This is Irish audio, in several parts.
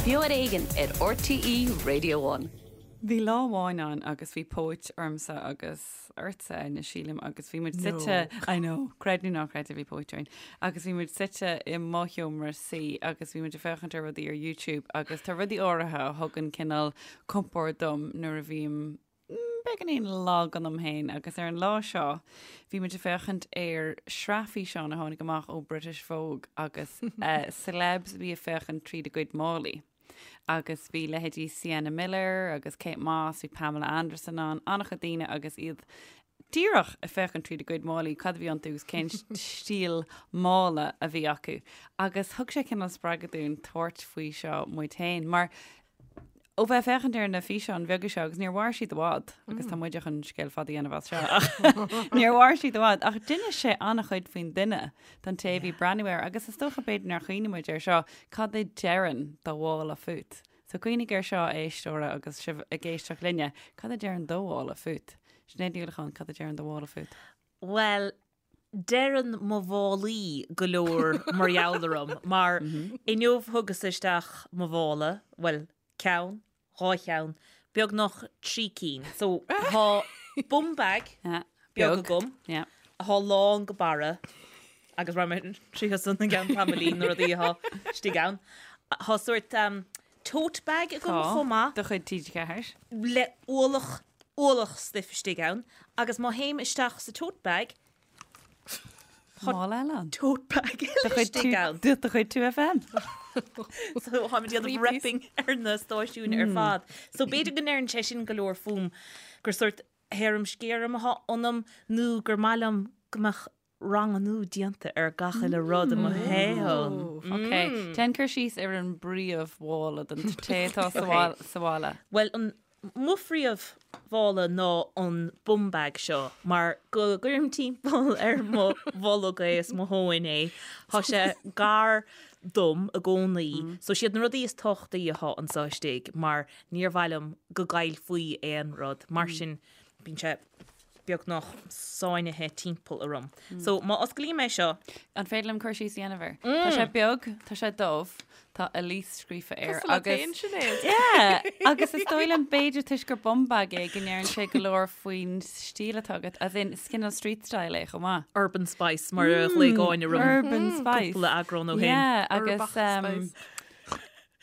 Beo ar Éigean ar RTÉ Radio One. Bhí lá amháin ann agus bhí póit ormsa agus ortsa, Áine, sílim, agus bhí muid suite, I know, creid nó ná creid, bhí póit orainn, agus bhí muid suite i mo sheomra suí agus bhí muid ag féachaint ar rudaí ar YouTube agus tá rudaí áirithe a thugann cineál compord dom nuair a bhím beagáinín lag ionam féin agus ar an lá seo bhí muid ag féachaint ar shraith físeán a tháinig amach ó British Vogue agus celebs a bhí ag féachaint tríd a gcuid málaí. Agus bhí leithéidí Sienna Miller agus Kate Moss, bhí Pamela Anderson ann, an-chuid daoine agus iad díreach ag féachaint tríd a gcuid málaí, cad a bhí iontu agus cén stíl mála a bhí acu. Agus thug sé cineál spreagadh dúinn tabhairt faoi seo muid féin, mar Ó bheith ag féachaint ar na físeáin bheaga seo, agus níor mhair siad i bhfad, agus tá muide chun scéal fada a dhéanamh as seo, ach níor mhair siad i bhfad, ach d'inis sé an-chuid faoin duine don té a bhí ag breathnú air, agus is dócha b'fhéidir nár chuimhnigh muid air seo, cad a deireann do mhála fút? So cuimhnigh air seo, a éisteora, agus sibh ag éisteacht linne, cad a deireann do mhála fút? Sinéad Ní Uallacháin, cad a deireann do mhála fút? Bhuel, deireann mo mhálaí go leor mar gheall orm, mar inniu thugas isteach mo mhála, bhuel, ceann, dhá cheann, beagnach trí cinn. So, tá bum bag beag agam, atá lán go barra, agus raghaidh mé tríothu san i gceann tamaillín, na rudaí atá istigh ann. Tá sórt tote bag agam chomh maith. De chuid TG4. Le ualach, ualach stuif istigh ann agus má théim isteach sa tote bag, tá Mála eile ann. tote bag eile istigh ann. De chuid 2FM. So táim ag déanamh repping ar na stáisiúin ar fad. So b'fhéidir go ndeireann sé sin go leor fúm gur sórt harum-scarum atá ionam nó gur maith liom go mbeadh ranganú déanta ar gach uile rud i mo shaol. Ok, déan cur síos ar an bpríomh-mhála don té atá sa bhaile. Bhuel, an mo phríomh-mhála ná an bum bag seo mar go gcuirim timpeall ar mo bholg é is mo thóin é. Tá sé gar dom i gcónaí. So siad na rudaí is tábhachtaí atá anseo istigh mar níor mhaith liom go gcaillfí aon rud. Mar sin bíonn sé beagnach sáinnithe timpeall orm. So, má osclaím é seo. An féidir liom cur síos a dhéanamh air? Tá sé beag, tá sé dubh, tá Elise scríofa air Cosúil leat féin, Sinéad. Yeah! Agus is dóigh liom b'fhéidir toisc gur bum bag é go ndeireann sé go leor faoin stíl atá agat, as in is cineál street style é chomh maith. Urban Spice mar a ghlaoigh Áine orm. Urban Spice. Cúpla eagrán ó shin. Yeah, agus Uirbeach Spice.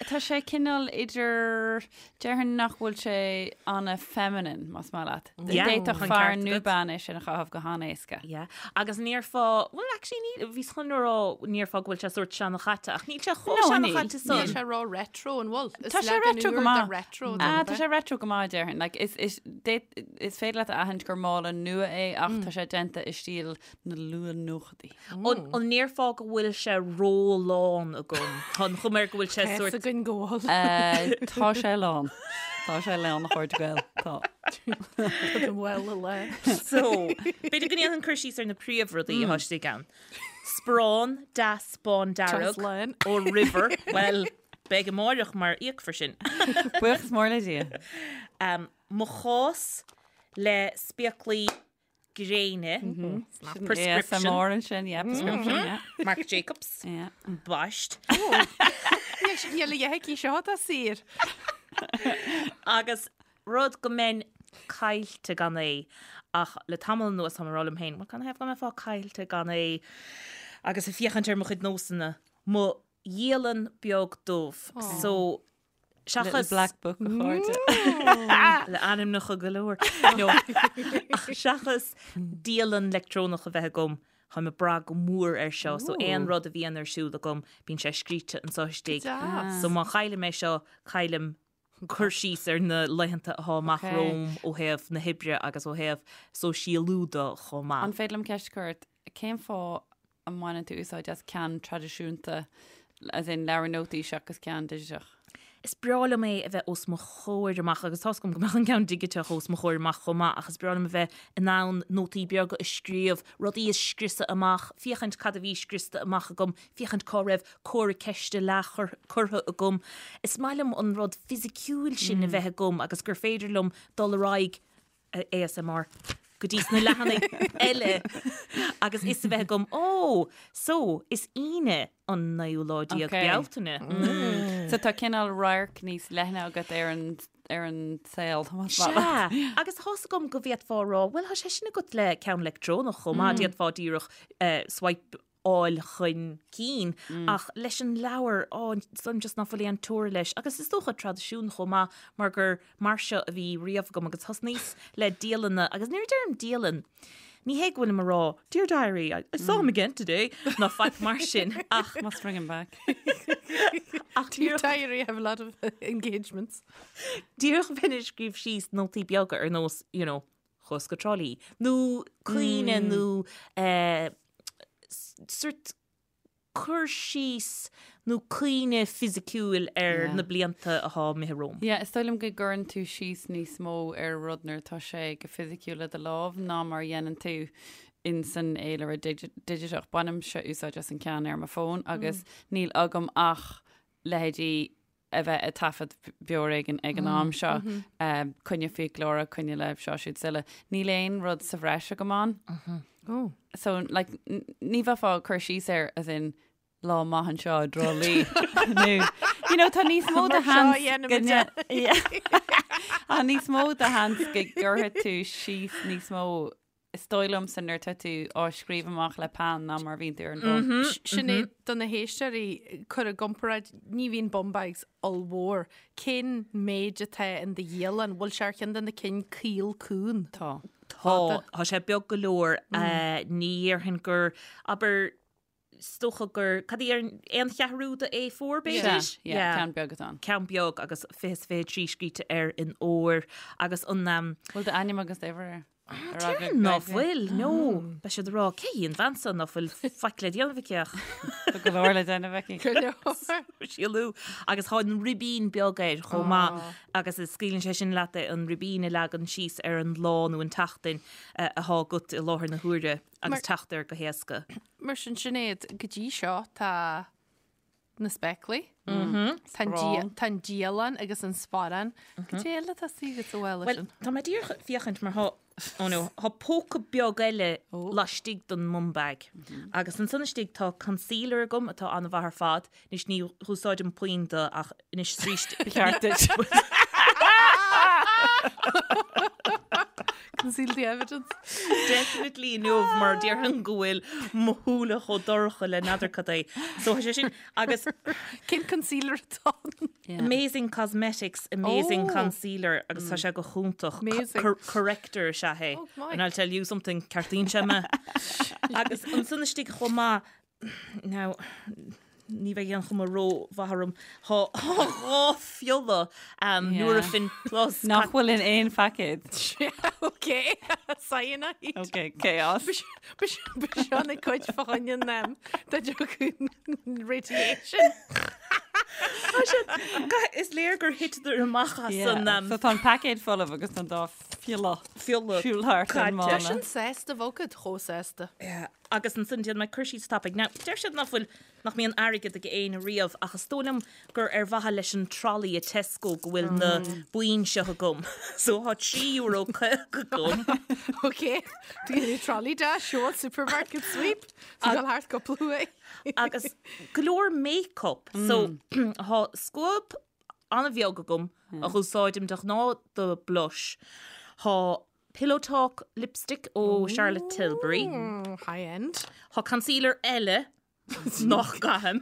Tá sé cineál idir, déarfainn nach bhfuil sé ana-feminine, más maith leat. Yeah, D'fhéadfadh tá an fear ceart nó agat. bean é sin a chaitheamh go han-éasca. Yeah. Agus an ndéarfá, well actually ní, bhíos chun a rá an ndéarfá go bhfuil sé sórt seanchaite ach níl sé chomh No, níl. seanchaite Níl san. sé ró-retro an bhfuil? Is Tá sé leagan retro go úr de maith. retro Ah, tá sé retro go maith, déarfainn. Like, is, is, d'fhéad- is féidir leat a aithint gur mála nua é ach tá sé déanta i stíl na luath-nóchaidí. An ndéarfá go bhfuil sé ró-lán agam? Tá an chuma air go bhfuil sé sórt. Tá a fhios againn go bhfuil. Tá sé lán. Tá sé lán a chairde Gael. Tá. Tá do mhála lán. So, b'fhéidir go ndéanfainn cur síos ar na príomhrudaí atá istigh ann. Sparán deas bán dearg ó River. Bhuel, beidh amáireach mar íocfar sin. Buíochas mór le Dia. Mo chás le spéaclaí gréine, prescription. ASMR ansin, yeah, prescription, yeah. Marc Jacobs, Yeah. baist. Níl a dhath aici seo atá saor. Agus rud go mbeinn caillte gan é, ach le tamall anuas táim ag rá liom féin, bhuel, canathaobh go mbeifeá caillte gan é agus ag féachaint ar mo chuid nósanna, mo dhialann beag dubh. So, Seachas. Little black book a chairde. Le ainmneacha go leor. No. Ach seachas dialann leictreonach a bheith agam, táim ag brath go mór air seo. So aon rud a bhíonn ar siúl agam, bíonn sé scríte anseo istigh. Deas. So má chaillim é seo, caillim cur síos ar na laethanta atá amach romham ó thaobh na hoibre agus ó thaobh sóisialú de chomh maith. An féidir liom ceist a chur ort? Cén fáth a mbaineann tú úsáid as ceann traidisiúnta, as in leabhar nótaí seachas ceann digiteach? Is breá liom é a bheith os mo chomhair amach agus tá's agam go mbeadh an ceann digiteach os mo chomhair amach chomh maith ach is breá liom a bheith in ann nótaí beaga a scríobh, rudaí a scriosadh amach, féachaint cad a bhí scriosta amach agam, féachaint cá raibh comhartha ceiste leath curtha agam. Is maith liom an rud fisiciúil sin a bheith agam agus gur féidir liom dul ar aghaidh ASMR. go dtí sna leathanaigh eile agus fhios a bheith agam, ó, so, is Aoine an naoú lá déag Okay. Bealtaine. So tá cineál radharc níos leithne agat ar an ar an saol. Sea, agus tá's agam go bhféadfá a rá, bhuel, tá sé sin agat le ceann leictreonach chomh maith, d'fhéadfá díreach swipe-áil chun cinn, ach leis an leabhar, á, is just ná fuil aon teora leis. Agus is dócha traidisiún chomh maith, mar gur mar seo a bhí riamh agam agus thosnaíos le dialanna, agus nuair a deirim dialann, ní hé go bhfuilim a rá, Dear diary, I saw him again today, ná faic mar sin, ach. Must bring him back. Ach Dear diary, I have a lot of engagements. Díreach bheinn ag scríobh síos nótaí beaga ar nós, you know, chuas go Trá Lí, nó cuimhne nó eh, sort cur síos nó cuimhne fisiciúil ar na blianta atá imithe romham. Yeah, is dóigh liom go gcuireann tú síos níos mó ar rud nuair atá sé go fisiciúil le do lámh ná mar a dhéanann tú in san fhéilire digiteach. Bainimse úsáid as an ceann ar mo fón agus níl agam ach leithéidí a bheith ag taifead Beo Ar Éigean ag an am seo, coinne fiaclóra, coinne le seo siúd is uile. Níl aon rud sa bhreis agam ann. Oh. So, like, ní bheifeá ag cur síos air as in lá maith anseo i dTrá Lí. Nó, you know, tá níos mó de sheans go Tá níos mó de sheans go gcuirfidh tú síos níos mó Is dóigh liomsa nuair atá tú á scríobh amach le peann ná mar a bhíonn tú ar an bhfón. Sinéad, do na héisteoirí, cuir i gcomparáid, ní bhíonn bum bags ollmhór. Cén méid atá in do dhialann? Bhfuil sé ar cheann de na cinn caol cúng? Tá. Tá. Tá sé beag go leor. Ní dhéarfainn gur, abair, is dócha gur, cad é, aon cheathrú de A4 b'fhéidir? Sea, yeah, ceann beag atá ann. Ceann beag agus 20 is 23 scríte air in ór agus an. Bhfuil d'ainm agus d'uimhir air? Déarfainn ná fuil, no. Beidh siad ag rá, cé hí an bhean seo ná fuil faic le déanamh aici ach. Tá go leor le déanamh aici. Go leor. Síolú. Agus tá an ribín beag air chomh maith agus scaoileann sé sin leat é, an ribín a leagan síos ar an lá nó an tseachtain atá agat i láthair na huaire agus teacht air go héasca. Mar sin, Sinéad, go dtí seo tá na spéaclaí, tá an dialann agus an sparán. Cad é eile atá istigh agat sa mhála sin? Bhuel, tá mé díreach ag féachaint mar thá, oh no, thá póca beag eile laistigh den mum bag. Agus ansan istigh tá concealer agam atá an-mhaith ar fad. Anois ní dh'úsáidim puinn de ach anois is arís. Ba cheart duit. Conceal the evidence. Definitely inniu mar déarfainn go bhfuil mo shúile chomh dorcha le n'fheadar cad é. So tá sé sin agus Cén concealer atá ann? Amazing Cosmetics Amazing Oh. Concealer agus tá sé go hiontach. Amazing. Corrector is ea é. Oh, my. And I'll tell you something, ceartaíonn sé mé. Agus ansan istigh chomh maith Now, ní bheidh aon chuma ró-mhaith orm. Thá 2 phiolla Nurofen Plus. Nach bhfuil in aon phaicéad. Ok, cyanide. Ok, chaos. B'seo na cuid fá choinne an dá dtiocfadh radiation. Is léir gur thiteadar amach as an. So tá an paicéad folamh agus tá an dá phiolla phiolla siúl thart ar an Tá mála. sin sásta, bhogad chomh sásta. Agus ansan déanfaidh mé cur síos tapaidh. Now, deir siad nach bhfuil, nach mbíonn airgead ag éinne riamh ach is dóigh liom gur ar mhaithe leis an trolley i Tesco go bhfuil na boinn seo agam. So thá €3 50 agam. Ok, do you need a trolley dash, sure, supermarket sweep, so dul thart cúpla uair. Agus go leor make-up. So thá scuab an-bheag agam a dh'úsáidim de ghnáth do blush. Thá Pillow Talk lipstick ó Charlotte Tilbury. High end. Thá concealer eile nach gcaithim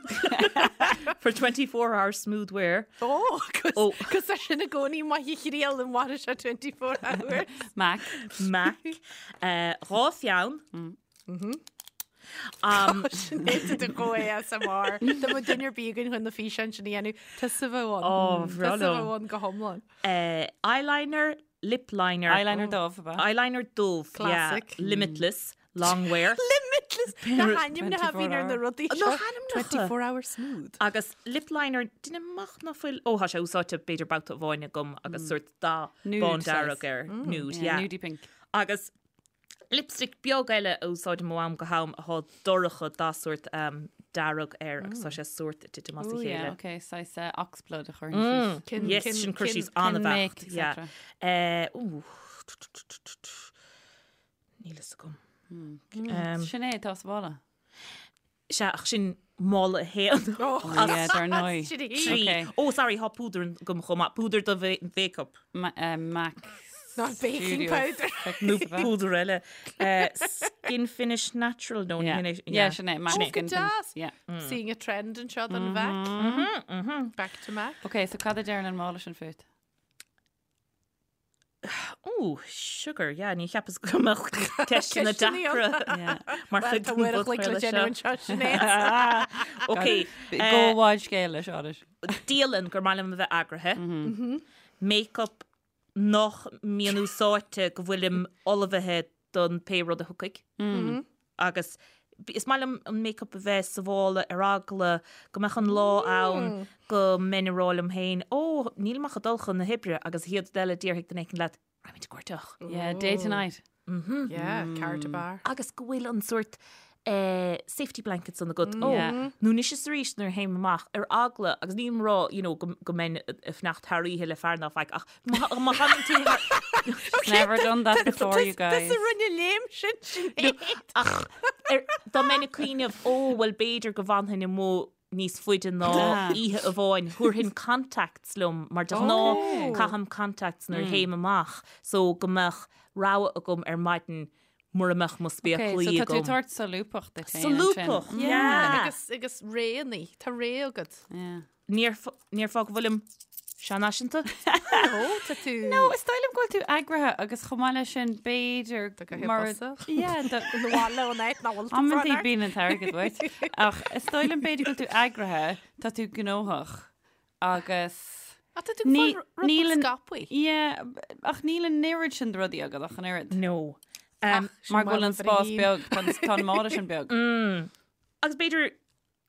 for 24 hour smooth wear. Ó, cos tá sin i gcónaí maith a thriail an mhairfidh sé 24 hours. Mac. Mac. 2 pheann. Sinéad do go ASMR. Dá mbeadh duine ar bith againn chun na físeáin sin a dhéanamh, tusa a bheadh ann. Ó, bhreá Tusa a liom. bheadh ann go hiomlán. Eyeliner, lip liner. Eyeliner dubh, ab ea? Eyeliner dubh, yeah. Classic. Limitless, long wear. Limitless! Na hainmneacha a bhíonn ar na rudaí seo. Na hainmneacha! 24 hour smooth. Agus lip liner, déanaim amach ná fuil, ó, tá sé úsáidte b'fhéidir babhta amháin agam agus sórt dath Nude bán saghas. dearg air. Nude, Yeah, yeah. nudie pink. Agus Lipstick beag eile a úsáidim ó am go ham athá dorcha dath sórt dearg air agus tá sé sórt ag titim as a Ooh, yeah, chéile. okay, saghas oxblood a chuireann síos. Cin, Yes, cin, sin cur cin, síos cin an-bheacht. make, Yeah. etc. Eh, ooh. Níl fhios agam. Sin é atá sa mhála. Sea, ach sin mála a haon. Oh, yeah, dar ndóigh. Sin í. Trí. Okay. Oh, sorry, thá púdar agam chomh maith. Púdar do mhéiceap. MAC Not baking Studio powder. Fix, Nó ab ea? púdar eile. Skin Finish Natural, no, Yeah. ní hin é. Yeah, sin é, MAC Oh, go Skin Finish. deas. Yeah. Seeing a trend anseo don MAC. Back to MAC. Okay, so cad a deireann an mála sin fút? Ó, sugar, yeah, ní cheapas go mbeadh ceisteanna Ceisteanna deacra Yeah. mar Well, chuid tá den uair a chloig le bpodchraoladh déanamh seo. anseo, Sinéad. Ok, Go bhfad scéal leis, Áras. dialann gur maith liom a bheith eagraithe. Make-up nach mbíonn úsáidte go bhfuilim ullmhaithe don pé rud a thiocfaidh. Agus is maith liom an make-up a bheith sa mhála ar eagla go mbeadh an lá ann go mbeinn ag rá liom féin, ó, nílim ach ag dul chun na hoibre agus an chéad rud eile déarfaidh duine éicint leat, raghaimid ag cuairteach. Yeah, day to night. Yeah, car to bar. Agus go bhfuil an sórt safety blanket san agat. Ó, Yeah. nó anois is arís nuair a théim amach ar eagla, agus nílim ag rá, you know, go go mbeinn ag fanacht thar oíche le fear ná faic, ach má má thagann tú thar... Never done that before, you guys. Tusa rinne léim sin, Sinéad. Ach ar, dá mbeinn ag cuimhneamh, ó, bhuel b'fhéidir go bhfanfainn amuigh níos faide ná Ah. oíche amháin, thabharfainn contacts liom, mar de ghnáth Okay. caithim contacts nuair a théim amach, so go mbeadh rogha agam ar maidin mura mbeadh mo Okay, spéaclaí so tá tú agam. tabhairt solúbthacht duit féin ansin. Solúbthacht, yeah. Agus, agus réannaí, tá ré agat. Yeah. Ní déarfá go bhfuilim seanfhaiseanta? No, tá tú... No, is dóigh liom go bhfuil tú eagraithe agus chomh maith leis sin b'fhéidir Tá go hip mar bosach. Yeah, do- Ina bhaile ón áit nach bhfuil tú Amantaí fán bíonn an t-airgead uait. Ach is dóigh liom b'fhéidir go bhfuil tú eagraithe, tá tú gnóthach agus Ach tá tú Ní- fáil rud níl an- scapaí. Yeah, ach níl an oiread sin de rudaí agat ach an oiread. No. Um, Mar go bhfuil an spás beag, tá an- tá an mála sin beag. Agus b'fhéidir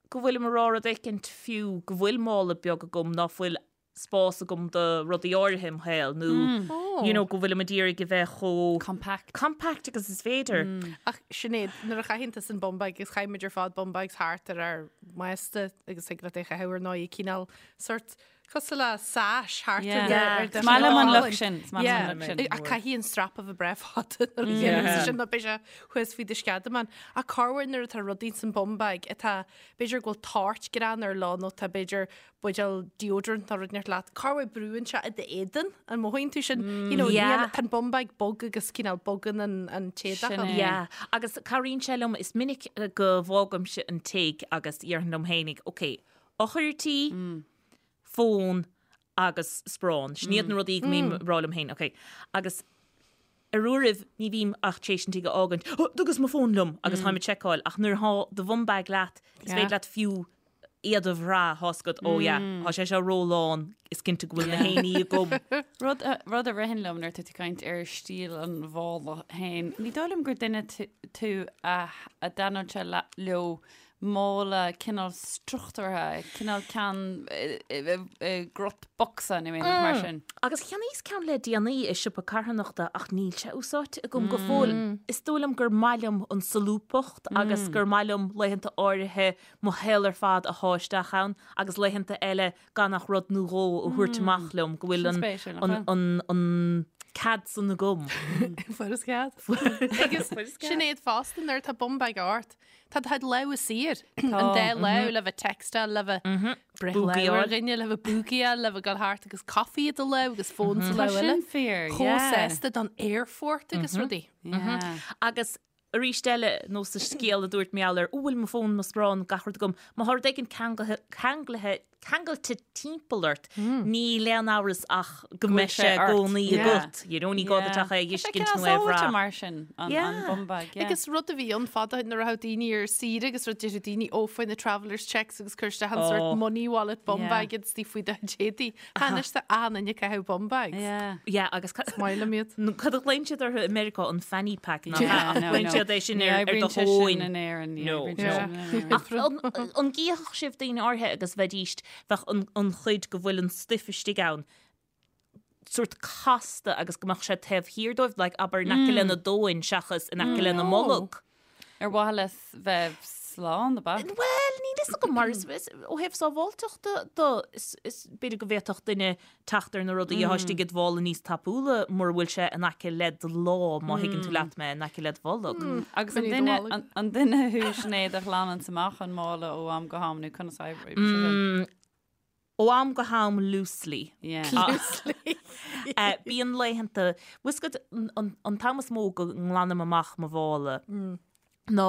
go bhfuilim ag rá rud éicint fiú go bhfuil mála beag agam ná fuil spás agam do rudaí áirithe im shaol nó you know, go bhfuilim ag iarraidh a bheith chomh Compact. compact agus is féidir. Ach Sinéad, nuair a chaitheann tusa an bum bag agus chaith muid ar fad bum bags thart ar ár mbásta agus thig leat é a chaitheamh ar ndóigh cineál sort cosúil le sash thart ar do Yeah. ar do Is maith liom an cholainn. look sin, is maith liom an look sin. Ach caithfidh an strap a bheith breá fada nuair a dhéanann tú sin nó beidh sé thuas faoi do sceadamán. Ach corruair nuair atá rudaí san bum bag atá b'fhéidir go bhfuil toirt grean ar lá nó tá b'fhéidir buidéal deodorant nó rud inteacht leat, corruair brúann sé i d'éadan, an mothaíonn tú sin? You know, Yeah. níl- tá an bum bag bog agus cineál bogann an an t-éadach Sin ann. é. Yeah, agus cabhraíonn sé liom, is minic go bhfágaimse an tigh agus déarfainn liom fhéinig, ok, eochair tí, fón agus sparán. Sin iad na rudaí go mbím ag rá liom féin, ok. Agus ar uairibh ní bhím ach tar éis an tigh a fhágaint, oh, thugas mo fón liom agus táim ag seiceáil, ach nuair atá do bhum bag leat, is féidir leat fiú iad a bhrath, tá's agat, oh yeah, tá sé seo rólán, is cinnte go bhfuil na haon ní agam. Rud a, rud a ritheann liom nuair atá tú ag caint ar stíl an mhála féin, ní dóigh liom gur duine tú a a dtaitneodh sé leo mála cineál struchtúrtha, cineál ceann i gcruth bocsa nó aon rud mar sin. Agus cheannaíos ceann le déanaí i siopa carthanachta ach níl sé úsáidte agam go fóill. Is dóigh liom gur maith liom an solúbthacht agus gur maith liom laethanta áirithe mo shaol ar fad a shá isteach ann agus laethanta eile gan ach rud nó dhó a thabhairt amach liom go bhfuil Sin spéisiúil, nach an, bhfuil? an, an cead san agam. Fuair cead. Agus Sinéad fosta nuair atá bum bag ort. Tá do lámha saor. An dá lámh le bheith textáil le bheith breith lámh ar Búgaíáil. dhuine le bheith búgaíáil le bheith dul thart agus coffee i do lámh agus fón sa Tá lámh eile. sin fíor, Chomh yeah. sásta don aerfort agus rudaí. Yeah. Agus arís eile nó sa scéal a dúirt mé ar ó bhfuil mo fón mo sparán gach rud agam, má tá rud éigin ceanglaithe ceangailte timpeall ort, níl aon amhras ach go mbeidh sé sé i ort. gcónaí Yeah. agat. You know, ní gá duit ach é a fheiscint nó é a bhrath. mar sin an Yeah. bum bag. Yeah. Agus rud a bhí ann fada nuair a raibh daoine ar saoire agus rud deireadh daoine ó faigh na traveller's checks agus cuir isteach an sort Oh. money wallet bum Yeah. bag agus tí faoi do éadaí. Anois tá an-duine ag caitheamh bum bags. Yeah. Yeah, agus ca- Maith liom iad. nó cad a ghlaonn siad orthu i Meiriceá an fanny pack ná Yeah, ach no, glaonn no. siad é sin Ní ar ar do oibríonn sé sin thóin. in Éirinn, ní No. oibríonn sé Yeah. sin in Éirinn. Ach an an gcífeadh sibh daoine áirithe agus bheidíst bheadh an, an chuid go bhfuil an stuif istigh ann sort casta agus go mbeadh sé taobh thiar dóibh, like, abair in aice lena dtóin seachas in aice lena mbolg. Ar mhaithe le bheith slán, ab ea? Bhuel, níl fhios agam mar is ó thaobh sábháilteachta de, is b'fhéidir go bhféadfadh duine teacht ar na rudaí atá istigh i do mhála níos tapúla mura bhfuil sé in aice le do lámh, má thuigeann tú leat mé, in aice le do bholg. Agus an duine, an duine thú, Sinéad, a ghlananns amach an mála ó am go ham nó conas a oibríonn sé sin? Ó am go ham loosely. Yeah. Loosely. Bíonn laethanta, bhfuil fhios agat, an t-am is mó go nglanaim amach mo mhála ná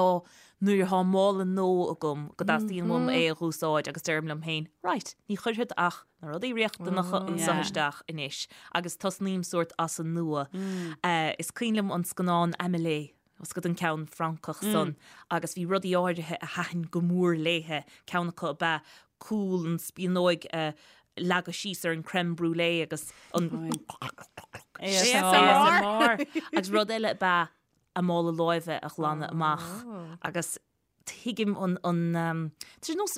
nuair atá mála nua agam go dteastaíonn uaim é a dh'úsáid agus deirim liom féin, right, ní chuirfead ach na rudaí riachtanacha anseo isteach anois agus tosnaím sórt as an nua. Is cuimhin liom an scannán Amélie Bhfuil fhios agat an ceann Francach san agus bhí rudaí áirithe a thaitin go mór léithe, ceann acu ab ea cúl an spíonóig a leagadh síos ar an crème brûlée agus an ASMR! Agus rud eile ab ea a mála láimhe a ghlanadh amach agus tuigim an, an, tá sé nós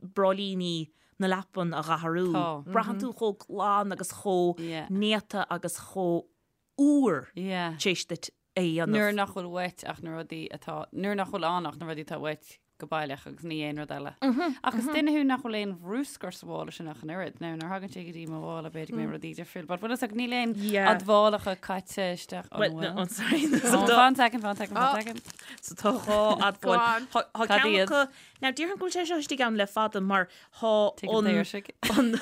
bráillíní na leapan a dh'athrú. Braitheann tú chomh glan agus chomh néata agus chomh úr tar éis duit é a dhéanamh. Nuair nach bhfuil uait ach na rudaí atá, nuair nach bhfuil ann ach na rudaí atá uait go baileach agus ní aon rud eile. Ach is duine thú nach bhfuil aon bhrúscar sa mhála sin ach an oiread. Now, nuair a thagann sé go dtí mo mhála, b'fhéidir go mbeidh rudaí difriúil, but bhfuil fhios agat, níl aon admhálacha caite isteach, an Well, bhfuil? no, sorry. Oh, fan second, fan second, fan second. So tá dhá admháil. Go on. Tá Cad ceann iad? acu, now déarfainn go bhfuil sé seo istigh ann le fada mar Thá Tig an an, daoirsigh. an,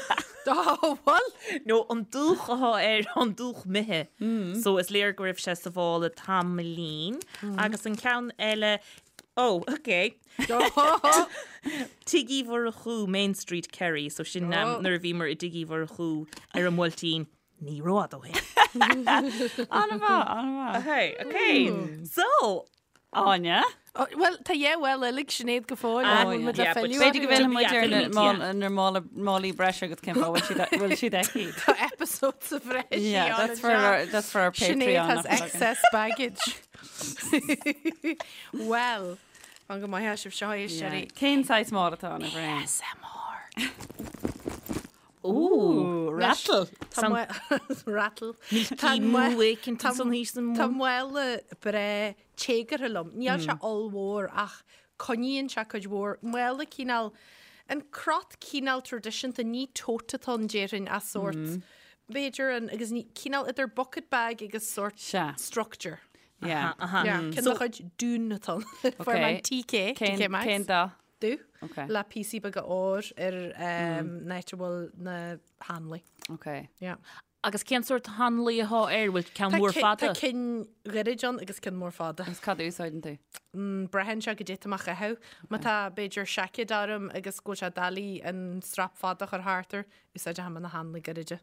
Ó, bhuel! nó an dúch athá air, an dúch imithe. So is léir go raibh sé sa mhála tamaillín. Agus an ceann eile, oh, ok. Tigh Uí Mhurchú, Main Street, Kerry. So sin nuair a bhíomar i dTigh Uí Mhurchú ar an mBuailtín. Ní rófhada ó shin. An-mhaith, an-mhaith. Ok, ok. So, Áine? Bhuel, tá dhá mhála eile ag Sinéad go fóill. Ah, Bhfuil muid le yeah, but filleadh B'fhéidir go orthu? bhfillfidh muid ar na Yeah. mála- na mála- málaí breise agus cén fáth bhfuil siad bhfuil siad aici. Tá episode sa bhreis Yeah, that's for our, that's for our Sinéad Patreon. has nach bhfuil againn. excess baggage. Well, fan go maith sibh seo é Yeah. Sherry. Cén saghas mála atá ann, a Bhriain? ASMR. Ooh, rattle. Tá rattle. Milky moo éicint ansan thíos san Tá mála breá téagartha liom. Níl sé ollmhór ach coinníonn sé cuid mhór. Mála cineál, an crot cineál traidisiúnta, ní tote atá ann déarfainn ach sórt, b'fhéidir an, agus ní, cineál idir bucket bag agus sórt Sea. structure. Yeah. Yeah, ceann de chuid Dún atá ann. Fuair mé an TK, TK Maxx. Cén dath? Dubh. Ok. Le píosaí beaga óir ar an áit a bhfuil na hanlaí. Ok. Yeah. Agus cén sórt hanlaí athá air? Bhfuil ceann mór fada? Tá cinn ghairid ann agus cinn mór fada. Agus cad a úsáideann tú? Braitheann sé goidé atá mé a chaitheamh. Má tá, b'fhéidir, seaicéad orm agus go bhfuil sé doiligh an strap fada a chur thart air, úsáidfidh mé na hanlaí gairide.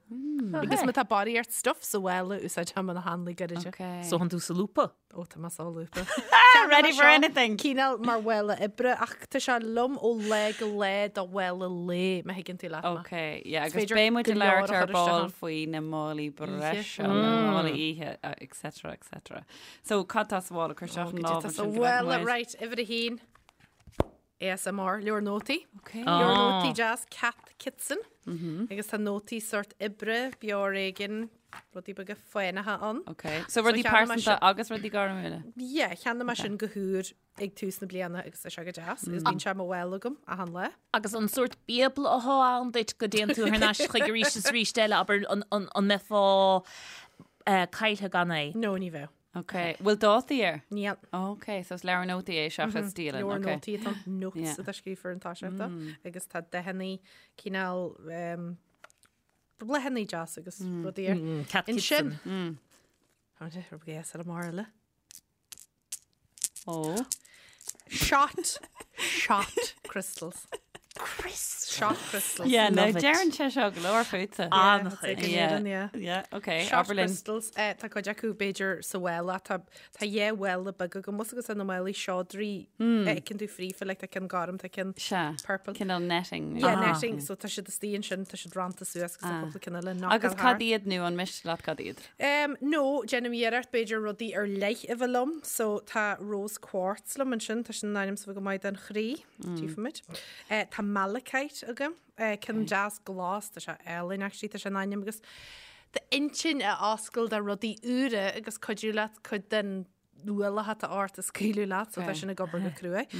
Agus má tá barraíocht stuff sa mhála, úsáidfidh mé na hanlaí gairide. Ok. So thánn tú solúbtha? Ó, tá mé solúbtha. Ready for anything! Cineál mar mhála oibre, ach tá sé liom ó lá go lá do mhála lae, má thuigeann tú leat mé. Ok, yeah, agus féidir beidh muid go ag leor labhairt a ar chur isteach ball ann. faoi na málaí breise, na málaí oíche, etc, etc. So, cad tá sa mhála? Cuir isteach an Goidé lámh tá sa ansin go bhfeicfidh mhála, muid. right, uimhir a haon. ASMR, leabhar nótaí. Ok. Leabhar nótaí deas, Cath Kidston. Agus tá nótaí sórt oibre, beár éigin, rudaí beaga fánacha ann. Ok. So rudaí cheannaigh mé pearsanta sin- agus rudaí gairmiúla? Yeah, cheannaigh mé sin go húr ag tús na bliana agus tá sé go deas. Agus bíonn sé i mo mhála agam achan lá. Agus an sórt bíobla athá ann duit go dtéann tú thar n-ais chuige arís is arís eile, abair an mbeifeá caillthe gan é? No, ní bheadh. Ok. Bhfuil dátaí air? Níl. Ok, so is leabhar nótaí é seachas dialann. Leabhar Ok. nótaí atá ann, notes Yeah. atá scríofa ar an toiseacht dó, agus tá dathannaí cineál um, bláthannaí deas agus rudaí air. Cath Ansin. Kidston. Tá sé ar ASMR eile. Ó. Shot. Shot crystals. Shot crystals. Yeah, no, Love it. deireann sé seo go leor fútsa. An-chuid. Yeah. Yeah. Yeah, ok, Shot abair linn. crystals. Eh, tá cuid acu b'fhéidir sa mhála. Tá tá dhá mhála beag agam bhfuil fhios agat na málaí seodra a fheiceann tú fríofa, like tá ceann gorm, tá ceann Sea. purple. Cineál netting. Yeah, netting. So tá siad istigh ansin, tá siad rannta suas agus tá cúpla ceann eile knockáil Agus thart. cad iad nó an miste leat cad iad? Um, no, déanaim iarracht b'fhéidir rudaí ar leith a bheith liom. So tá rose quartz liom ansin, tá sin in ainm is a bheith go maith don chroí. Tchífimid. Eh, tá malachite agam, eh, ceann deas glas, tá sé álainn actually, tá sé in ainm agus d'intinn a oscailt do rudaí úra agus cuidiú leat cuid den ualach atá ort a scaoileadh leat, so tá sin ag obair go cruaidh.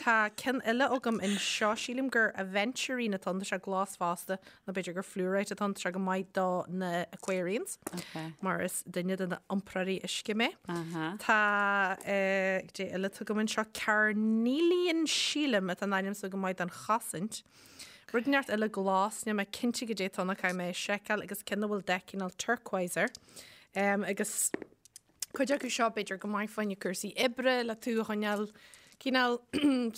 Tá ceann eile agam anseo, sílim gur aventurine atá ann, tá sé glas fosta, nó b'fhéidir gur fluorite atá ann, tá sé go maith do na Aquarians, mar is duine de na iompróirí uisce mé. Tá goidé eile atá agam anseo, carnelian sílim atá in ainm so go maith don chosaint. Rud inteacht eile glas, níl mé cinnte goidé atá ann ach caithfidh mé é a sheiceáil agus ceann a bhfuil dath cineál turquoise air. Agus cuid acu seo b'fhéidir go maith fá choinne cúrsaí oibre le tú a choinneáil cineál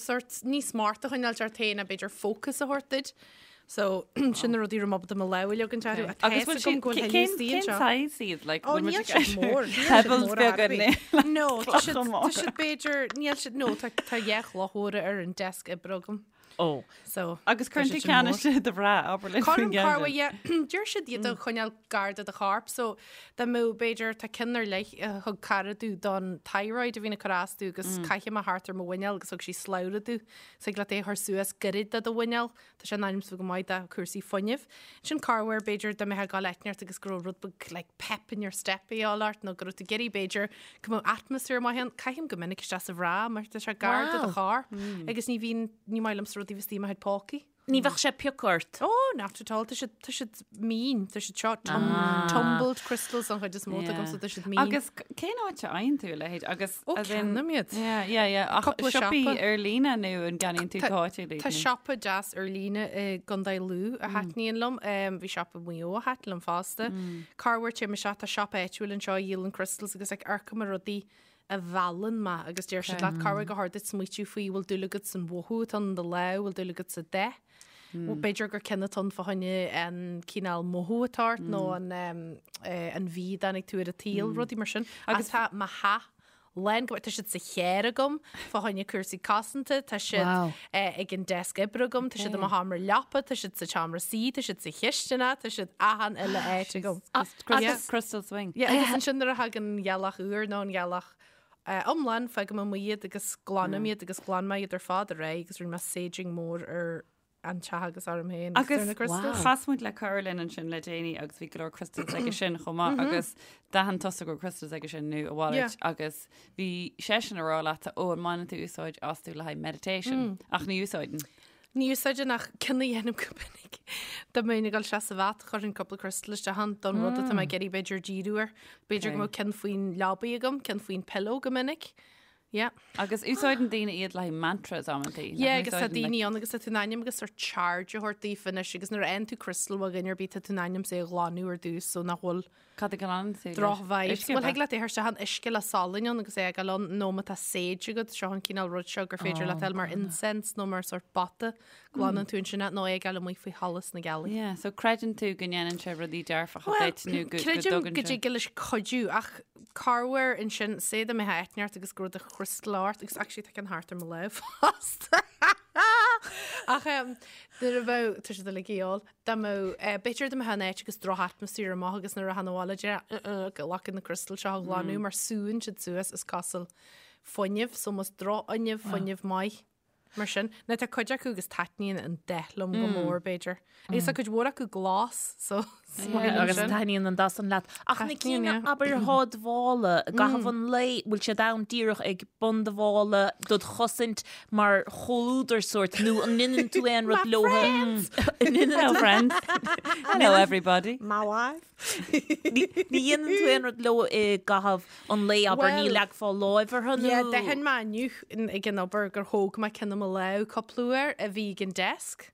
sort níos smacht a choinneáil ort féin a b'fhéidir focus a thabhairt duit. So sin na rudaí raibh mé ábalta mo lámh a leagan orthu. Ach Agus tá bhfuil fhios agam siad go bhfuil cén thuilleadh istigh cén anseo. size iad like Ó bhfuil muid níl ag siad mór, níl siad pebbles mór ar beaga bith. ní No, tá siad clocha tá móra. siad b'fhéidir níl siad no tá tá dhá chloch mhóra ar an desk oibre agam. Ó. So, Agus tá cuireann siad tú sin ceann mór. istigh do bhra, abair linn faoin Cuirim gceann corruair, sin. yeah. Deir siad iad a choinneáil gar do do chorp, so dá mbeadh, b'fhéidir, tá ceann ar leith a thug cara domh don thyroid a bhíonn ag cur as domh agus caithim é thart ar mo mhuineál agus thug sí slabhra domh. So thig leat é a chur suas gairid do do mhuineál. Tá sé in ainm is a bheith go maith do chúrsaí fuinnimh. Sin corruair, b'fhéidir, dá mbeifeá ag gabháil áit inteacht agus go raibh rud beag like pep in your step a dhíobháil ort nó go raibh tú ag iarraidh, b'fhéidir, go mbeadh atmaisféar maith ann. Caithim go minic isteach sa bhra mar tá sé gar do do Wow. chorp agus ní bhíonn, ní maith liomsa rudaí a bheith istigh i mo chuid pócaí. Ní bheadh sé ag piocadh ort. Oh, not at all. Tá siad, tá siad mín. Tá siad seo tum, tumbled crystals an chuid is mó agam, so tá siad mín. Agus cén áit a fhaigheann tú a leithéid? Agus Ó, as in- ceannaím iad. Yeah, yeah, yeah. Ach Cúpla siopaí siopa. ar líne nó an gceannaíonn tú Tá- go háitiúil iad Tá nó? siopa deas ar líne i gContae Lú a thaitníonn liom. Bhí siopa i Maigh Eo a thaitin liom fosta. Corruair téim isteach, tá siopa áitiúil anseo a dhíolann crystals agus like amharcaim ar rudaí a mheallann mé agus deir siad leat corruair gur chóir duit smaoitiú faoi bhfuil dúil agat san mhothú atá in do lámh, bhfuil dúil agat sa dath. B'fhéidir gur ceann atá ann fá choinne an cineál mothú atá ort nó an an mhí a dtáinig tú ar an tsaol, rudaí mar sin. Agus tá mo theach lán go tá siad sa charr agam fá choinne cúrsaí cosanta, tá siad ag an deasc oibre agam, tá siad i mo sheomra leapa, tá siad sa tseomra suí, tá siad sa chisteanach, tá siad achan uile áit agam. Crystal Swing. Yeah, agus ansin nuair a thagann an ghealach úr nó an ghealach iomlán, fágaim amuigh iad agus glanaim iad agus ghlan mé iad ar fad aréir agus rinne mé saging mór ar an teach agus orm féin agus ar na crystals. Chas muid le cara linn ansin le déanaí agus bhí go leor crystals aige sin chomh maith agus d'aithin tusa go raibh crystals aige sin nó a mhalairt agus bhí seisean ag rá leat ó an mbaineann tú úsáid astu le haghaidh meditation ach ní úsáideann. Ní úsáideann ach ceann a dhéanaim go minic. Dá mbeinn ag dul isteach sa bhath, chuirfinn cúpla crystal isteach ann don rud atá mé ag iarraidh b'fhéidir díriú air. B'fhéidir go mbeadh ceann faoin leabaidh agam, ceann faoin pillow go minic. Yeah. Agus úsáideann daoine iad le haghaidh mantras amantaí. Yeah, agus tá daoine ann agus tá tú in ainm agus sort charge a thabhairt daofa anois agus nuair a fhaigheann tú crystal ó dhuine ar bith tá tú in ainm is é a ghlanadh ar dtús so nach bhfuil Cad a ghlanann tú leis? Droch vibes. Uisce, Bhuel, ab ea? thig leat é a chur isteach in uisce le salann ann agus é a fhágáil ann, nó má tá sage agat, seo an cineál rud seo gur féidir leat é a fháil mar incense nó mar sort bata, glanann tú ansin é, nó é a fhágáil amuigh faoi sholas na gealaí. Yeah, so creideann tú go ndéanann sé rudaí dearfacha Bhuel, duit nó go, go creidim dtugann go sé. dtig leis cuidiú, ach corruair ansin, say dá mbeifeá áit inteacht agus go raibh do chrystal ort, agus actually tá ceann thart ar mo lámh fosta. Ach em, nuair a bheadh, tá siad uilig a dhíol. Dá mbeadh, b'fhéidir dá mbeifeá in áit agus droch-atmaisféar amuigh agus nuair a rachfá abhaile déarfá ghlac na criostail seo a ghlanadh mar súnn siad suas is cosúil fuinneamh, so más drochfhuinneamh, fuinneamh maith mar sin. Now tá cuid acu agus taitníonn an dath liom go mór b'fhéidir. Agus tá cuid mhór acu glas so is maith liom Agus sin. taitníonn an dath san leat. Ach na Taitníonn, cinn yeah. abair atá i do mhála i gcaitheamh an lae, bhfuil siad ann díreach ag bun do mhála dod chosaint mar chomhluadar sórt nó an ndéanann tú aon rud leo? Hello friends. Hello everybody. My wife. Ní dhéanann tú aon rud leo i gcaitheamh an lae abair ní Well, leagfá láimh orthu nó? Yeah, d'aithin mé inniu ag an obair gur thóg mé ceann i mo lámh cúpla uair a bhí ag an desk.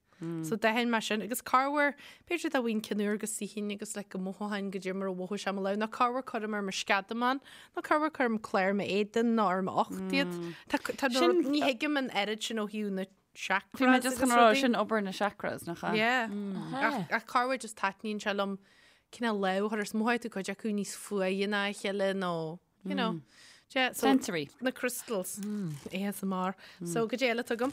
So d'aithin mé sin agus corruair, b'fhéidir dá bhfaighinn ceann úr go suífinn agus like go mothóchainn goidé mar a mhothaigh sé i mo lámh, nó corruair cuirim ar mo sceadamán, nó corruair cuirim clár m'éadain nó ar m'ucht iad. Tá tá na Sin- rud- ní thuigim an oiread sin ó thaobh na chakras Bhí mé just agus chun rá rudaí. sin obair na chakras nach ea? Yeah. Ach ach corruair just taitníonn sé liom cineál lámh a chur air, is mothaíonn tú cuid acu níos fuaire ná a chéile nó you know. Yeah, so Sensory. Na crystals. ASMR. So goidé eile atá agam.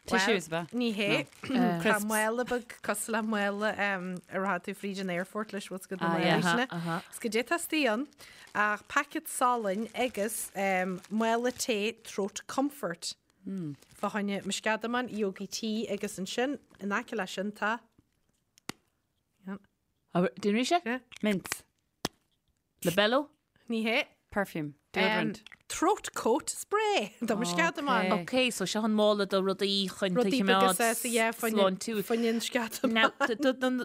Tissues ab ea? Ní hé. Tá Crisps. mála beag cosúil le mála a rachaidh tú fríd an airport leis what's good Ah, yeah. na Is goidé atá istigh ann ach packet salainn agus mála tae throat comfort. Fá choinne mo sceadamán, Yogi tea agus ansin in aice leis sin tá Déan arís é? Mints. Labello? Ní hé. Perfume. Deodorant. Throat coat spray do mo sceadamán. Ok, so seo an mála do rudaí chun tú a choimeád sláintiúil. Fá choinne an sceadamán. Now,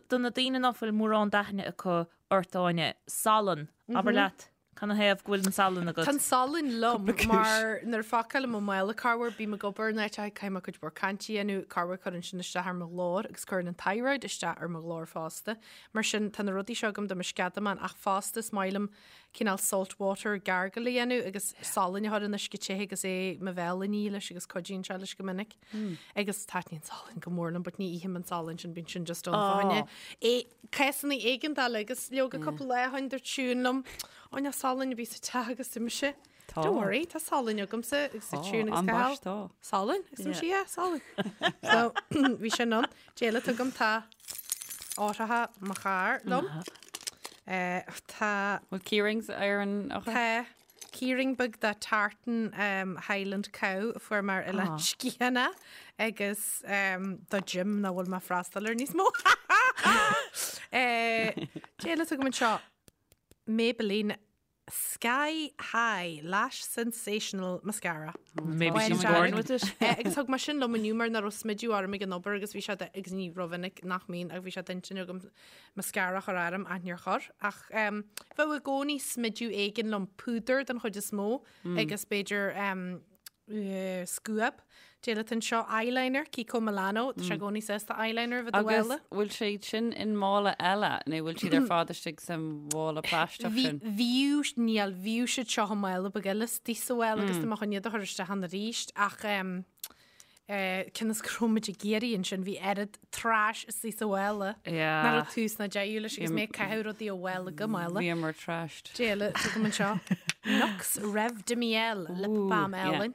do na daoine ná fuil mórán d'aithne acu ort, Áine, salann, abair leat, canathaobh go bhfuil an salann agat? Tá an salann liom mar nuair a phacáilim mo mhála corruair bím ag obair in áit caithfidh mé cuid mhór cainte a dhéanamh, corruair cuireann sin isteach ar mo ghlór agus cuireann an thyroid isteach ar mo ghlór fosta. Mar sin tá na rudaí seo agam do mo sceadamán ach fosta is maith liom cineál salt water gargle a dhéanamh agus salann a chur in uisce te agus é mo bhéal a ní leis agus cuidíonn sé leis go minic. Agus taitníonn salann go mór liom, but ní ithim an salann sin, bíonn sin just ann fá choinne. É cásanna éigeandála agus leoga cúpla lá ó shin dúirt Siún liom, Ó níl salann ar bith sa teach agus dúirt mise, Tá. Don't worry, tá salann agamsa agus Tá, dúirt Siún agus an Cathal. baist tá. Salann? Agus dúirt mise, yeah, salann. So bhí sin ann. Cad eile atá agam tá eochracha mo charr liom. Tá. Bhfuil keyrings ar an eochair? Tá keyring beag de tartan Highland Cow a fuair mé ar Oileán Sgitheanach agus do gym nach bhfuil mé ag freastal air níos mó. Cad eile atá agam anseo Maybelline Sky High Lash Sensational Mascara. Maybe she's born with it. Agus thug mé sin liom inniu mar nach raibh smideadh orm ag an obair agus bhí sé agus ní rómhinic nach mbíonn ach bhí sé d'intinn agam mascara a chur orm ach níor chuir. Ach bheadh i gcónaí smideadh éigin liom, púdar den chuid is mó agus b'fhéidir scuab. Cad eile atá anseo eyeliner, Kiko Milano, tá sé i gcónaí sásta eyeliner a bheith i do Agus mhála. bhfuil siad sin in mála eile nó bhfuil siad ar fad istigh sa mhála plaisteach sin? Bhíodh, níl, bhíodh siad seo i mála beag eile istigh sa mhála agus tá mé chun iad a chur isteach ann arís ach cionn is go raibh muid ag iarraidh ansin bhí oiread trash istigh sa mhála Yeah. nach raibh tús ná deireadh leis agus mé ag caitheamh rudaí ó mhála go mála. Bhíomar trashed. Cad eile atá agam anseo. Nuxe Rêve de Miel lip balm álainn.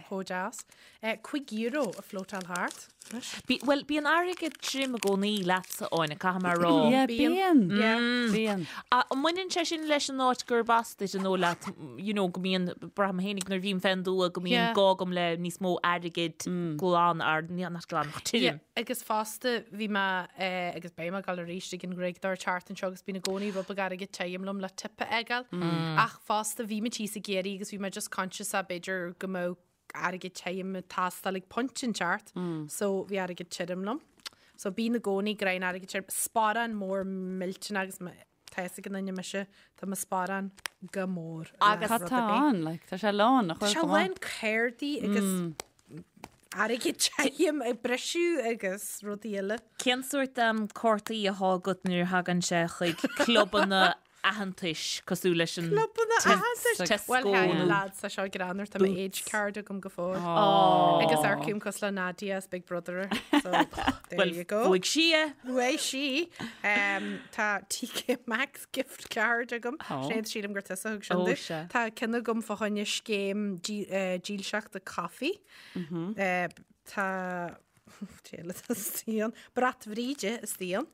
Chomh deas. €5 ag floatáil thart. Anois. Bhuel, bíonn airgead tirim i gcónaí leatsa, Áine, caithfidh mé a rá. Yeah, Bíonn. bíonn. Bíonn. An mbaineann sé sin leis an áit gurb as duit an dóigh leat, you know, go mbíonn, braithim féinig nuair a bhím fén dtuath go mbíonn Yeah. gá agam le níos mó airgid glan, ar, not glan, ach tirim. Yeah, agus fosta bhí mé agus beidh mé ag dul arís ag an nGraig an tseachtain seo agus bíonn i gcónaí rud beag airgead tirim liom le tip a fhágáil. Ach fosta bhí mé thíos i gCiarraí agus bhí mé just conscious a b'fhéidir go mbeadh airgead tirim ag teastáil ag pointe inteacht so bhí airgead tirim liom. So bíonn i gcónaí greim airgead tirim, sparán mór millteanach agus tá a fhios ag an duine mise, tá mo sparán go mór. Agus Cad tá ann? Like, tá sé lán, nach Tá bhfuil sé go maith? lán cártaí agus airgead tirim ag briseadh agus rudaí eile. Cén sórt cártaí atá agat nuair a thagann sé chuig clubanna aitheantais cosúil leis an Clubanna aitheantais? Tesco Bhuel, nó hey, lads, tá seo greannmhar, tá mo age card agam go fóill. Agus amharcaim cosúil le Nadia as Big Brother. So, there Bhuel, you go. bhuaigh sí é. Bhuaigh sí. Tá TK Maxx gift card agam. Sinéad, sílim gur tusa a thug sin Ó, domh. sea. Tá ceann agam fá choinne scéim dílseachta caife. Tá Tá Brat Bhríde istigh ann.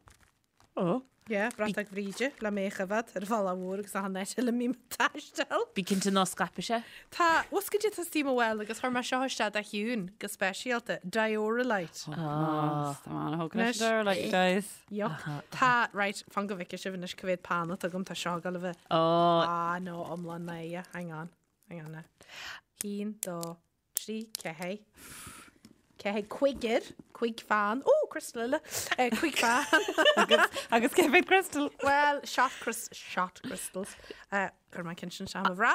Ó. Yeah, bratach Bhríde le mé a choimhéad ar an bhealach mhór agus achan áit eile a mbím ag taisteal. Bí cinnte ná scaipfidh sé. Tá, bhfuil goidé atá istigh i mo mhála agus chuir mé seo isteach do Shiún go speisialta, Dioralyte. Tá mé an-thógtha leis an Dioralyte, guys. Yuck. Tá, right, fan go bhfeicfidh sibh anois cá mhéad peann atá agam, tá seo ag dul a bheith. Ó. Ah, no, iomlán náire, hang on, hang on now. Haon, dó, 3, 4, 4, cúigear, cúig pheann, ó, crystal eile, cúig pheann. Agus cé mhéad crystal? Well, shot, shot crystals. Chuir mé an ceann sin isteach i mo bhra.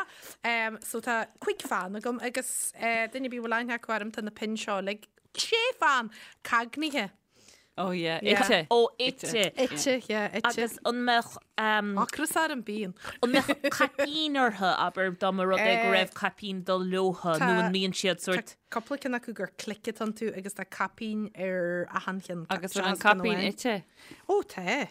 So tá cúig pheann agam agus duine ar bith a bhfuil aithne acu orm tá na pinn seo uilig, sé pheann, cagnaithe. Oh yeah, ite. Ó, ite. Ite, yeah, ite. Agus an mbeadh... Ocras orm, bíonn. An mbeadh caipín orthu, abair, dá mba rud é go raibh caipín ag dul leothu, nó an mbíonn siad sórt... Tá cúpla ceann acu gur click atá iontu agus tá caipín ar achan cheann. Agus bhfuil an caipín ite? Ó, tá.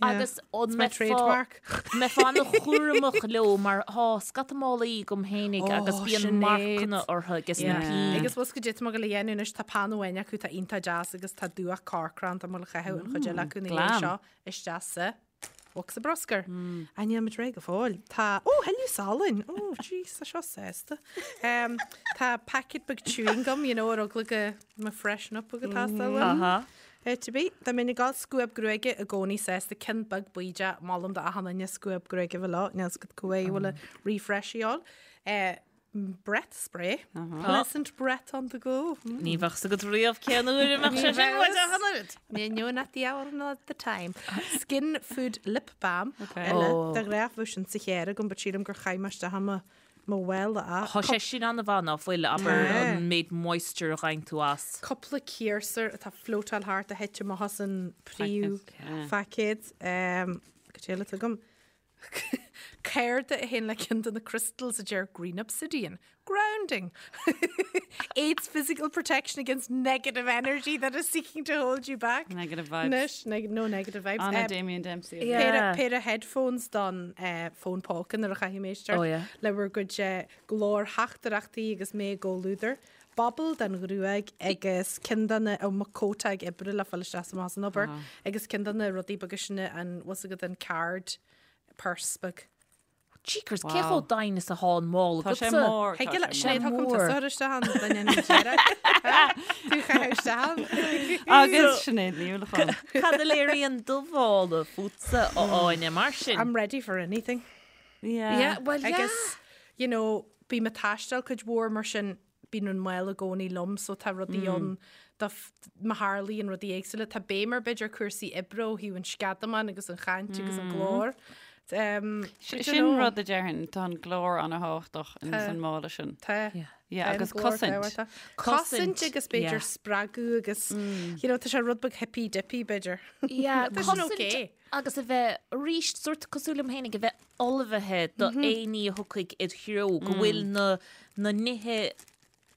Agus an mbeifeá an-chúramach leo mar tá scata málaí agam fhéinig agus bíonn marcanna orthu agus na pinn. Agus bhfuil a fhios goidé atá mé ag gabháil a dhéanamh anois, tá peann amháin acu atá iontach deas agus tá dúch corcra ann, tá mé ag gabháil a chaitheamh an chuid eile acu ina dhiaidh seo isteach sa. Bhocsa bruscair. Á níl muid réidh go fóill. Tá, ó, thuilleadh salainn! Ó, jeez, tá seo sásta. Tá packet beag chewing gum, you know, ar eagla go mba freshen up ag teastáil uaim. Aha. Áit ar bith. Dá mbeinn ag gabháil scuab gruaige i gcónaí sásta, ceann beag buí de, molaim do achan duine scuab gruaige a bheith leo, níl 's agat cá huair a bhfuil refresh a dhíobháil. Breath spray. Pleasant breath on the go. Ní bheadh 's agat riamh cén uair a mbeadh sé sin uait ach an oiread. Ní no not the hour nor the time. Skin food lip balm. Eile, de ghnáth bheadh sin sa charr agam, but sílim gur chaith mé isteach i mo mo mhála é. Tá sé sin an-mhaith ná fuil, abair, an méid moisture a gheibheann tú as. Cúpla ciarsúr atá floatáil thart a thit amach as an príomhphaicéad. Cad eile atá agam? Cárta a théann le ceann de na crystals a deir Green Obsidian. Grounding. Aids physical protection against negative energy that is seeking to hold you back. Negative vibes. Anois, neg no negative vibes. Anna Damien Dempsey. Yeah. Péire headphones don eh, fón póca nuair a chaithfidh mé éisteacht Oh, yeah. le bhur gcuid eh, glórtheachtaireachtaí agus mé i gcomhluadar. Bobble don ghruaig agus ceann de na, ó, mo cóta ag oibre le fáil isteach is amach as an obair, agus ceann de na rudaí beaga sin an, bhfuil 's agat an card purse beag. Jeekers, cé chomh doimhin is atá an mála Tá sé agatsa? mór. Thig tá le, sé Sinéad, mór. thug an mór. tusa isteach an duine an deireadh. Tú chaith isteach ann. Agus Sinéad Ní Uallacháin. Cad a léiríonn do mhála fútsa, a Áine, mar sin? I'm ready for anything. Yeah. Yeah, well, yeah. Agus, you know, bím ag taisteal cuid mhór mar sin, bíonn an mála i gcónaí liom so tá rudaí ann do má tharlaíonn rudaí éagsúla. Tá béim ar b'fhéidir cúrsaí oibre ó thaobh an sceadamán agus an chaint agus an glór. Sin rud a déarfainn, tá an glór an-thábhachtach in san mála sin. Tá. Yeah, agus cosaint. Cosaint agus b'fhéidir spreagadh agus you know, tá sé rud beag hippy dippy b'fhéidir. Yeah, Tá sin cosaint okay. agus a bheith arís sórt cosúil liom féinig a bheith ullmhaithe do aon ní a thiocfaidh id threo, go bhfuil na na nithe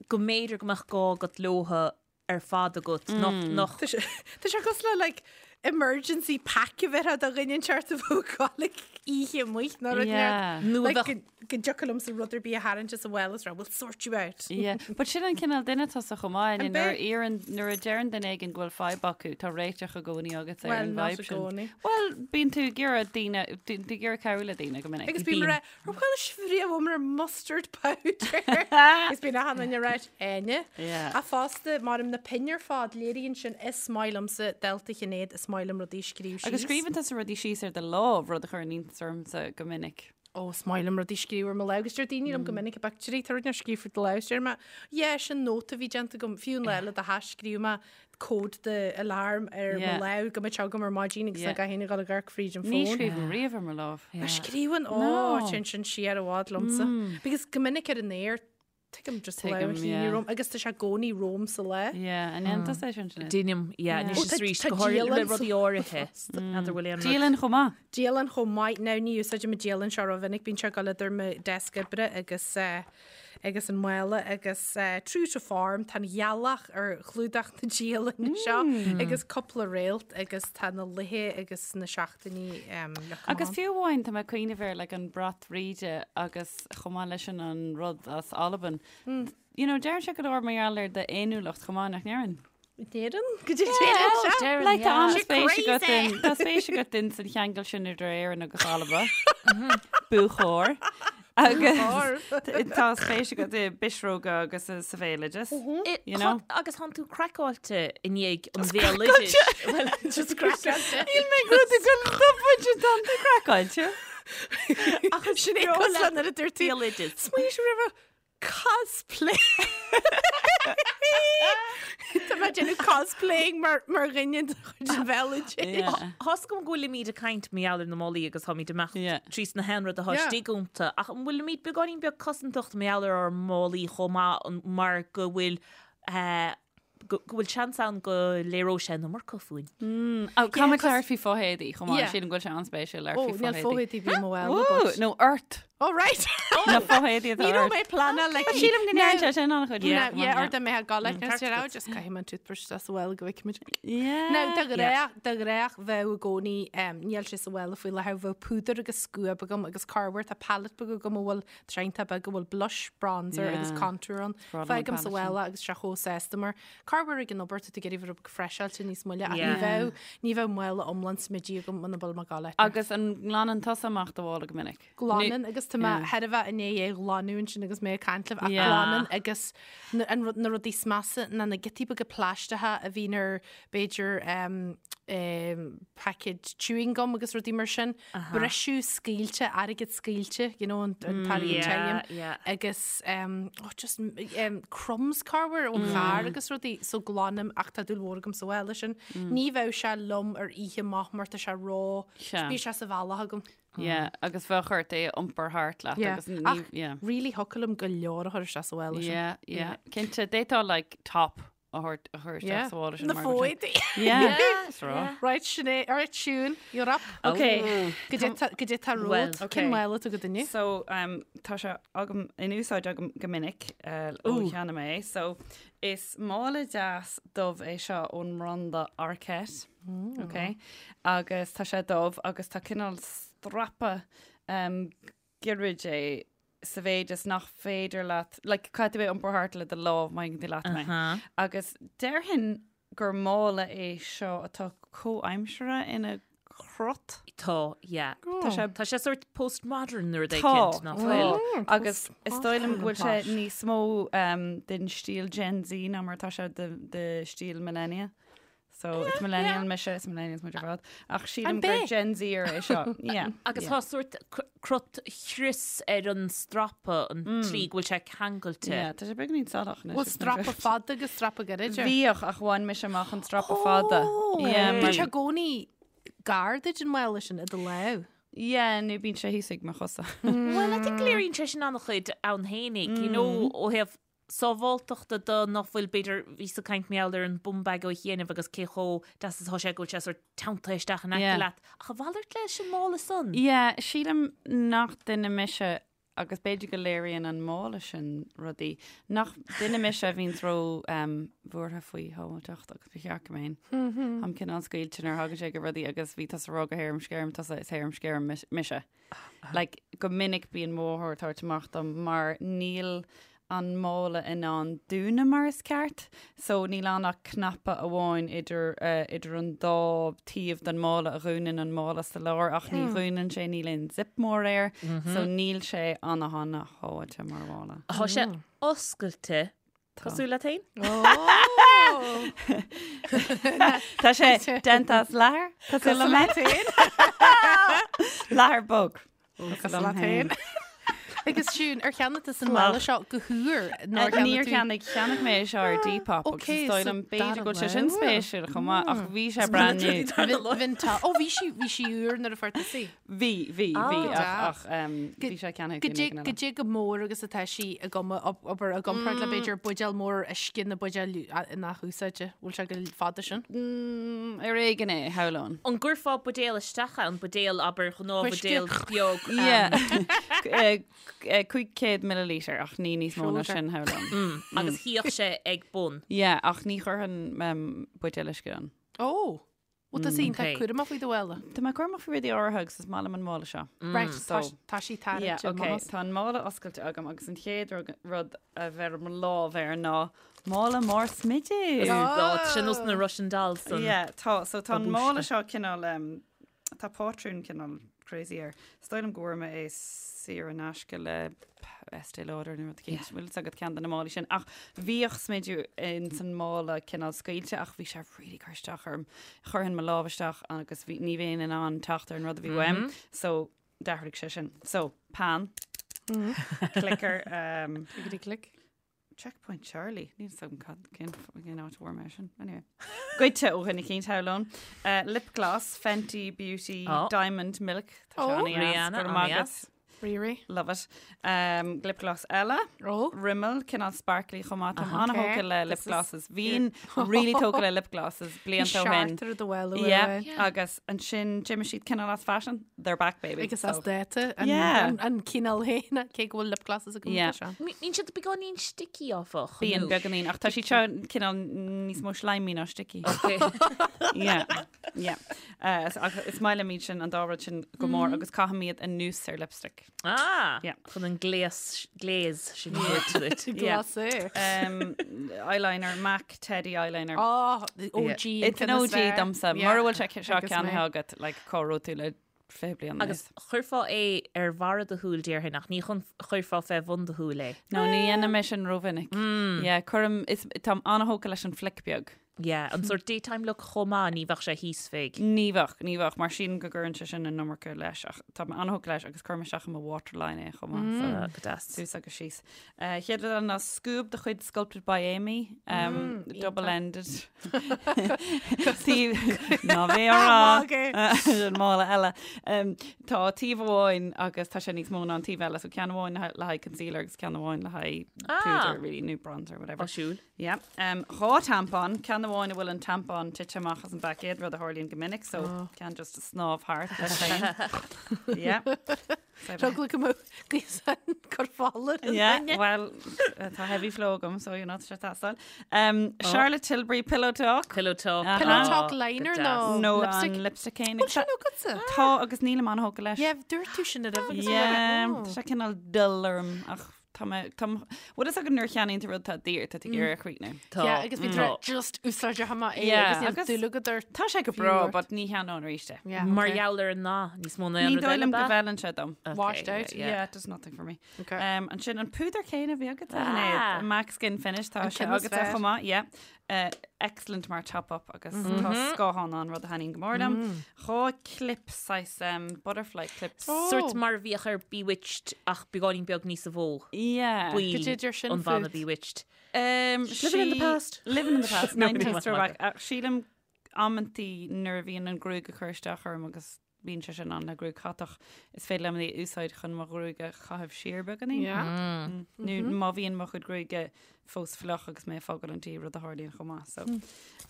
go mb'fhéidir go mbeadh gá agat leotha ar fad agat, nach, nach. Tá sé tá sé cosúil le like emergency pack a bheith do dhuine inteacht a bheadh ag gabháil like oíche amuigh nó rud Yeah. Nó a Like, bheadh- go go dtiocfadh liomsa rud ar bith a tharraingt as an mhála is rá, we'll sort you out. Yeah, but sin an cineál duine tusa chomh maith, An nuair a bith? iarrann, nuair a deireann duine éigin go bhfuil fadhb acu, tá réiteach i gcónaí agat ar Well, an not vibe i sin. gcónaí. Well, bíonn tú ag iarraidh daoine, bíonn tú ag iarraidh cabhrú le daoine go minic. Agus bím ag rá, ar chuala sibh riamh uaim ar mustard powder? Agus bíonn achan duine ag rá, Áine. Yeah. Ach fosta, mar na pinn ar fad, léiríonn sin is maith liomsa dalta Shinéad, is maith liom rudaí a scríobh síos. Agus scríobhann tusa rudaí síos ar do lámh, rud a chuireann iontas ormsa go minic. Ó, is maith liom rudaí a scríobh ar mo lámh, agus deir daoine liom go minic i bpictiúirí, tá rud inteacht scríofa ar do lámh, is deir mé, yeah, sin nóta a bhí déanta agam, fiú an lá le do hais scríobh mé cód do alarm ar mo Yeah. lámh go mbeadh sé agam ar maidin agus Yeah. nach gcaithfinn a dhul ag amharc fríd an Ní fón. scríobhaim riamh ar mo lámh. Ach scríobhann, ó, No. téann sin siar i bhfad liomsa. Because go minic ar an aer, tuigim just Tuigim, lámh a shíneadh yeah. romham agus tá sé i gcónaí romham sa lá. Yeah, an ndéanann tusa é sin, Sinéad? Déanaim, yeah, Yeah. anois Ó, is tá- arís, tá go háirithe le dialann rudaí áirithe. N'fheadar bhfuil aon rud. Dialann chomh maith. Dialann chomh maith. Now ní úsáidim an dialann seo rómhinic, bíonn sé ag dul idir mo deasc oibre agus eh, agus an mála agus eh, true to form, tá an ghealach ar chlúdach na dialainne seo agus cúpla réalt agus tá na laethe agus na seachtainí em, leagtha Agus amach. fiú amháin tá mé ag cuimhneamh air like an brat bhríde agus chomh maith leis sin an rud as Albain. You know, deireann sé go leor mar gheall ar d'fhéiniúlacht chomh maith nach ndeireann? Deireann? Go dtí deireann sé? Deireann, Like, tá yeah. an-spéis She's agat in tá spéis agat in san cheangal sin idir Éirinn agus Alba. Buachóir. Agus tá spéis agat i bpisreoga agus i sa bhéaloideas. You know? Agus tánn tú craiceáilte i ndiaidh an bhéaloidis. Well, Just craiceáilte. Níl mé ag rud ag dul tá tú craiceáilte. Ach sin é cosúil nuair a dúirt tú Béaloideas. Smaoinigh sibh roimhe cosplay. Tá mé ag déanamh cosplaying mar mar dhuine de chuid an bhéaloidis. Yeah. Tá's agam go bhfuilimid ag caint mar gheall ar na málaí agus táimid ag imeacht Yeah. trí sna haon rud atá Yeah. istigh iontu, ach an bhfuilimid beagáinín beag cosantach mar gheall ar ár málaí chomh maith an- mar go bhfuil eh, go bhfuil seans ann go léireodh sé an iomarca fúinn. Ó, Caithfidh mé labhairt faoi fothéadaí chomh maith, Yeah. sílim go bhfuil sé an-spéisiúil labhairt Ó, faoi níl fothéadaí. fothéadaí bhí mo bhfuil Ooh, nó ort. Oh, right. Na fothéadaí atá Ní raibh ort. mé pleanáil like Sílim go ndeireann sé sin an-chuid. Yeah, yeah, or dá mbeadh ag gabháil ceart sé agat. just caithfidh mé an toothbrush isteach sa mhála go bhfeicfimid. Yeah. Now, de ghnáth, de ghnáth bheadh i gcónaí, um, níl sé sa mhála faoi láthair, bheadh púdar agus scuab agam agus corruair tá palette beag agam a bhfuil triantán beag a bhfuil blush, bronzer agus Yeah. contour ann. Breá liom an Fágaim sa palette sin. mhála agus sé chomh sásta mar. Corruair ag an obair tá tú ag iarraidh bheith rud beag freiseáilte níos moille ach ní bheadh, ní bheadh mála iomlán smididh agam muna bhfuil mé ag gabháil áit. Agus an nglanann tusa amach do mhála go minic? Glanann agus tá mé thar a bheith i ndiaidh é a ghlanadh ansin agus mé ag caint libh ach glanann agus na, an rud, na rudaí is measa ná na giotaí beaga plaisteacha a bhíonn ar b'fhéidir paicéad chewing gum agus rudaí mar sin. Briseadh scaoilte, airgead scaoilte, you know, an t-airgead tirim. Agus oh, just crumbs corruair ón charr agus rudaí, so glanaim ach tá dúil mhór agam sa mhála sin. Ní bheadh sé liom ar oíche amach mar tá sé ró, bíonn sé sa bhealach agam. Yeah, agus bheadh ort é a iompar thart leat agus ní, yeah. Really thiocfadh liom go leor a chur isteach sa mhála sin. Yeah, yeah. Cinnte, d'fhéadfá like top a thabhairt a chur isteach sa mhála sin. Na fóidí. Yeah. Is rá. Right, Sinéad, all right, Siún, you're up. Okay. Goidé tá romhat, cén mála atá agat inniu? So, um, tá sé agam in úsáid agam go minic uh, ó cheannaigh mé é. So, is mála deas dubh é seo ón mbranda Arket. Mm. Okay. Agus tá sé dubh agus tá cineál strapa um, gairid é sa mhéid is nach féidir leat, like, caithfidh tú é a iompar thart le do lámh, má thuigeann tú leat mé. Agus déarfainn gur mála é seo atá comhaimseartha ina chrot. Tá, yeah. Tá sé Tá sé sort postmodern nó rud Tá, éicint, nach bhfuil? tá. Agus is dóigh liom go bhfuil sé níos mó um, den stíl Gen Z ná mar atá sé de, de stíl millennia. So is millennial mise, is millennials muid ar fad. Ach sílim gur Gen Zer é seo. Yeah. Agus tá sórt crot chrios ar an strapa an tslí go bhfuil sé ceangailte. Yeah, tá sé beagáinín salach anois. Bhfuil strapa fada agus strapa gairid air? Bhíodh ach bhain mise amach an strapa fada. Yeah, Bíonn sé i gcónaí gar duit an mála sin i do lámh. Yeah, nó bíonn sé thíos ag mo chosa. Well, I think léiríonn sé sin an-chuid ann fhéinig, you know, ó thaobh sábháltachta de nach bhfuil, b'fhéidir, bhíos ag caint mar gheall ar an bum bag ó chianaibh agus cé chomh deas is atá sé go bhfuil sé sort teanntaithe isteach in aice Yeah. leat. Ach a mhalairt leis an mála san. Yeah, sílim nach duine mise, agus b'fhéidir go léiríonn an mála sin rudaí, nach duine mise a bhíonns ró um, bhuartha faoi shábháilteacht agus ba cheart go mbeinn. Táim cineál scaoilte nuair a thagann sé go rudaí agus bhí tusa ag rá gur harum scarum tusa is harum scarum mise. Like, go minic bíonn mo mháthair ag tabhairt amach dom mar níl an mála in ann dúnadh mar is ceart, so níl ann ach cnaipe amháin idir, eh, idir an dá taobh den mála a dhúnann an mála sa lár ach ní dhúnann sé, níl aon zip mór air, so níl sé ana-ana-shábháilte mar mhála. Tá sé oscailte Cosúil leat féin? Tá sé déanta as leathar cosúil liom féin. Leathar bog. Cosúil leat féin. Agus Siún, ar cheannaigh tú an mála seo go húr? Níor cheannaigh, cheannaigh mé é seo ar Depop agus is dóigh liom b'fhéidir go bhfuil sé sin spéisiúil chomh maith ach bhí sé brand new. Ó bhí sí bhí sí úr nuair a fuair tusa í. Bhí, bhí, bhí, ach bhí sé ceannaithe ag duine éigin eile. Goidé chomh mór agus atá sí i obair i gcomparáid le b'fhéidir buidéal mór uisce nó buidéal nach úsáide. Bhfuil sé go fada sin? Ar éigean é, shamhlóinn. An gcuirfeá buidéal isteach ann, buidéal, abair, gnáthbhuidéal beag? Yeah. 500 milliliter ach ní níos mó ná sin, shamhlóinn. Agus shuíodh sé ag bun? Yeah, ach ní chuirfinn buidéal uisce ann. Ó! Bhuel, tá sí iontach cúramach faoi do mhála. Tá mé cúramach faoi rudaí áirithe agus is maith liom an mála seo. Right, so, tá sí tarraingte. Yeah, okay. Tá an mála oscailte agam agus an chéad rud a bheirim mo lámh air ná mála mór smididh. Oh, tá sé nós na Russian dolls san. Yeah, tá. So tá an mála seo cineál, um, tá pátrún cineál crazy air. Is dóigh liom go bhfuair mé é saor in aisce le Estée Lauder nó rud éicint. Bhfuil fhios agat ceann de na málaí sin. Ach bhíodh smideadh ins an mála cineál scaoilte ach bhí sé really cur isteach orm. Chuirfinn mo lámh isteach agus bhí, ní bheinn in ann teacht ar an rud a bhí uaim. So d'athraigh sé sin. So, peann. Clicker. Um, Clickety click. Checkpoint Charlie. Níl fhios agam cad cén cén áit a bhfuair mé sin. Anyway. Goidte ó dhuine éicint, shamhlóinn. Uh, lip gloss, Fenty Beauty, Oh. Diamond Milk. Tá sé Oh. an-deas. Rihanna, Go raibh maith an-deas. agat. Riri. Love it. Um, lip gloss eile. Oh. Rimmel, cineál sparkly chomh maith. Táim Okay. an-thógtha le lip This is- glosses. Bhínn really tógtha le lip glosses blianta ó shin. Seartar do bhfuil Yeah. Agus ansin d'imigh siad cineál as fashion. They're back, baby. Agus as So- dáta an Yeah. an- an cineál féin cé go bhfuil lip glosses agam Yeah. seo. Bíonn siad beagáinín sticky áfach. Bíonn nó? beagáinín ach tá siad seo cineál níos mó slimy ná sticky. Okay. Yeah. Yeah. Uh, so, ach is maith liom iad sin an dá rud sin go mór agus caithim iad anuas ar lipstick. Ah! Yeah. Chun an gléas, glaze sin a thabhairt duit. Yeah. Glas é. Um, eyeliner, MAC Teddy eyeliner. Oh, OG. It's an OG domsa. Mura bhfuil sé seo Agus mé. ceannaithe agat, like, cá raibh tú le 20 bliain Agus chuirfeá é ar bharra do shúil déarfainn ach ní chun chuirfeá fé bhun do shúil é. No, ní dhéanaim é sin rómhinic. Yeah, cuirim, is, táim an-thógtha leis an flick beag. Yeah, an sórt daytime look chomh maith, ní bheadh sé thíos fé. Ní bheadh, ní bheadh, mar sílim go gcuireann sé sin an iomarca leis ach tá mé an-thógtha leis agus cuirim isteach i mo waterline é chomh maith. So, Ah, go deas. suas agus síos. Uh, chéad rud eile ná scuab de chuid Sculpted by Aimee, um, double-ended. Taobh ná bheith á rá. An mála eile. Um, tá taobh amháin agus tá sé níos mó ná an taobh eile, so ceann amháin le haghaidh concealer agus ceann amháin le haghaidh Ah. púdar, really, nó bronzer, whatever. Áisiúil. Yeah. Um, 2 tampon, ceann amháin a bhfuil an tampon tite amach as an bpaicéad, rud a tharlaíonn go minic, so oh. ceann just a snámh thart leis féin. Yeah. Rugla go mbeadh gaosan cur fála. Yeah, well, uh, tá heavy flow agam, so you're not sé tastáil. Um, oh. Charlotte Tilbury Pillow Talk. Pillow Talk. Uh -huh. Pillow Talk liner nó no, lipstick. An lipstick céanna. Bhfuil sin agatsa? Tá agus nílim an-thógtha leis. Yeah, dúirt tú sin ar agus Yeah, tá sé cineál dull orm ach Tá mé, tá, bhfuil fhios agat nuair a cheannaíonn tú rud atá daor, tá tú ag iarraidh a chríochnú. Tá. Yeah, agus bhí tú just úsáid amach é Yeah, agus níl agus- dúil agat ort. Tá sé go Fiú breá, ort. but ní cheannóinn arís é. Yeah, Mar okay. gheall ar an ndath, níos mó ná aon Ní rud dóigh eile liom go ab ea? bhfeileann sé dom. Okay, Washed out. yeah, yeah. Yeah, it does nothing for me. Okay. Um, ansin an púdar céanna a bhí agat Ah. ah. MAC Skin Finish tá An sé ceann is agat fearr. chomh maith, yeah. Uh, excellent mar top up agus tá scáthán ann rud a thaitníonn go mór liom. 2 clip saghas um, butterfly clips. Oh. Sórt mar a bhíodh ar Bewitched ach beagáinín beag níosa mhó. Yeah. Baill Cad é deir sin an bhanna fút? Bewitched. Um, Living in the past. Living in the past. No, 90s ní throwback. Ach, sílim amantaí nuair a bhíonn an gruaig ag cur isteach orm agus bíonn sé sin ann le gruaig chatach, is féidir liom é a úsáid chun mo ghruaig a chaitheamh siar beagáinín. Yeah. Nó má bhíonn mo chuid gruaige fós fliuch agus mé ag fágáil an tí, rud a tharlaíonn chomh maith. So.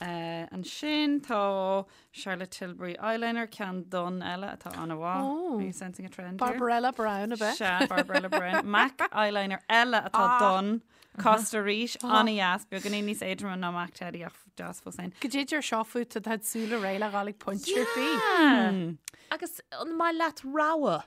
Uh, ansin tá Charlotte Tilbury eyeliner, ceann donn eile atá an-mhaith. Oh. Are you sensing a trend here? Barbarella Brown ab ea? Sea, Barbarella Brown. MAC eyeliner eile atá Ah. donn. Costa arís, an-dheas, beagáinín níos éadroime ná MAC Teddy ach deas fós féin. Cad é deir seo fút tá do shúile réidh le dhul ag pointe ar bith. Yeah. Agus an maith leat rogha?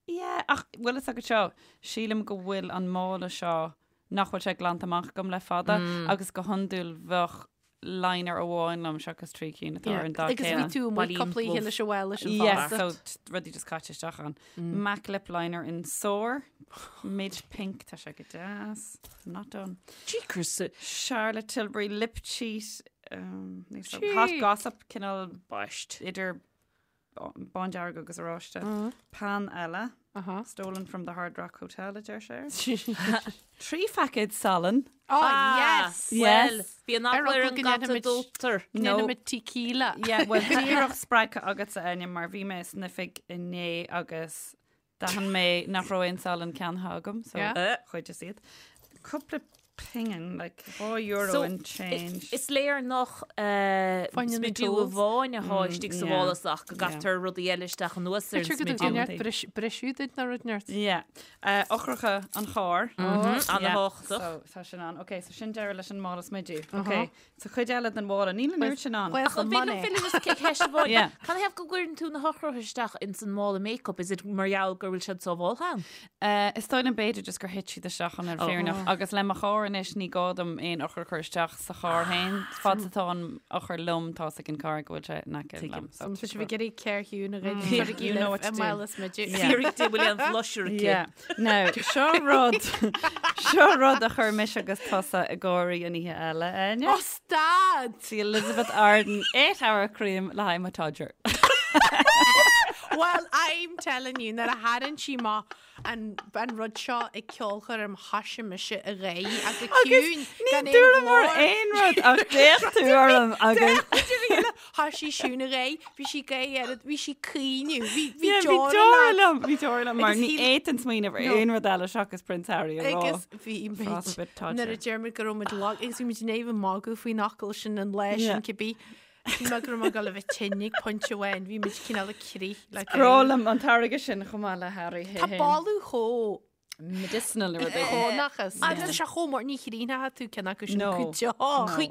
Yeah, ach bhfuil fhios agat seo, sílim go bhfuil an mála seo nach bhfuil sé glanta amach agam le fada agus go hiondúil bheadh liner amháin liom seachas 3 cinn atá ar an dath Agus bhí céanna. tú amuigh Bailín cúpla oíche dubh. leis an bhfuil leis an Yeah, bhfásta. so rudaí just caite isteach ann. MAC lip liner in Soar, mid pink, tá sé go deas. I'm not done. Jeekers. Charlotte Tilbury lip cheat, um, níl so- Gee. Hot Gossip, cineál Baist. idir bándearg agus oráiste. Pan eile, Aha. stolen from the Hard Rock Hotel, a deir sé. 3 phaicéad salann. Oh, yes! Well, Yes. bhí an Ar eagla ar fhocal an go gcata ndéanfaimid- dótar. No. Déanfaimid tequila. Yeah, well, díreach spreagtha agatsa Áine mar bhí mé san oifig inné agus d'aithin mé nach raibh aon salann ceannaithe agam, so Yeah. chuideas iad. Cúpla pingin, like €2 So, in change. Is léir nach Fáinne na smidiú tools. amháin atá istigh sa yeah. mhála ach go gcaitear rudaí eile isteach anuas ar an B'fhéidir go smidiú. dtugann neart briseadh duit ná rud neart. Yeah. Eochracha an chairr. An-thábhachtach. So, tá sin ann. Ok, so sin deireadh leis an mála smidiú. Ok, so cuid eile den mhála. Níl an oiread sin ann. Well, Ach an féidir liom filleadh just ceist amháin? Yeah. Canathaobh go gcuireann tú na heochracha isteach ins an mála make-up? Is it mar gheall go bhfuil siad sábháilte ann? Is dóigh liom b'fhéidir just gur thit siad isteach ann ar fírinneach agus le mo charr anois ní gá dom aon eochair a chur isteach sa charr féin. Fad is atá an eochair liom tá 's ag an carr go bhfuil sé in aice liom. So Tá sibh ag iarraidh céir chiúin a ghoid. You know what to do. Mála smidiú. Fiafraigh di bhfuil aon blusher aici. Yeah. Now, seo rud, seo rud a chuir mise agus tusa ag gáirí an oíche eile, Áine. Oh, stad! The Elizabeth Arden 8 hour cream le haghaidh mo todger. Well, I'm telling you, nuair a tharraing sí amach an an rud seo ag ceolchoirm thoisigh mise ag gáire ach go ciúin Ní gan aon dúramar ghlór. aon rud ach d'fhéach tú orm agus Thoisigh Siún ag gáire, bhí sí ag gáire, bhí sí ag caoineadh, bhí bhí Yeah, bhí deora deora leat. liom, bhí deora liom mar Agus ní shíl- fhéadfainn smaoineamh ar No. aon rud eile seachas Prince Harry a rá. Agus bhí muid Frost bit todger. nuair a deir muid go raibh muid lag agus bhí muid in éamh magadh faoin fhocal sin an lá Yeah. sin cibé. Shíl mé go raibh mé ag dul a bheith tinn ag pointe amháin, bhí muid cineál ag crith le Grá gáire. liom an táirge sin chomh maith le Harry Tá boladh chomh medicinal nó rud éigin. chónachas. Agus tá sé chomh mór ní chríonfaidh tú ceann acu sin No. go deo.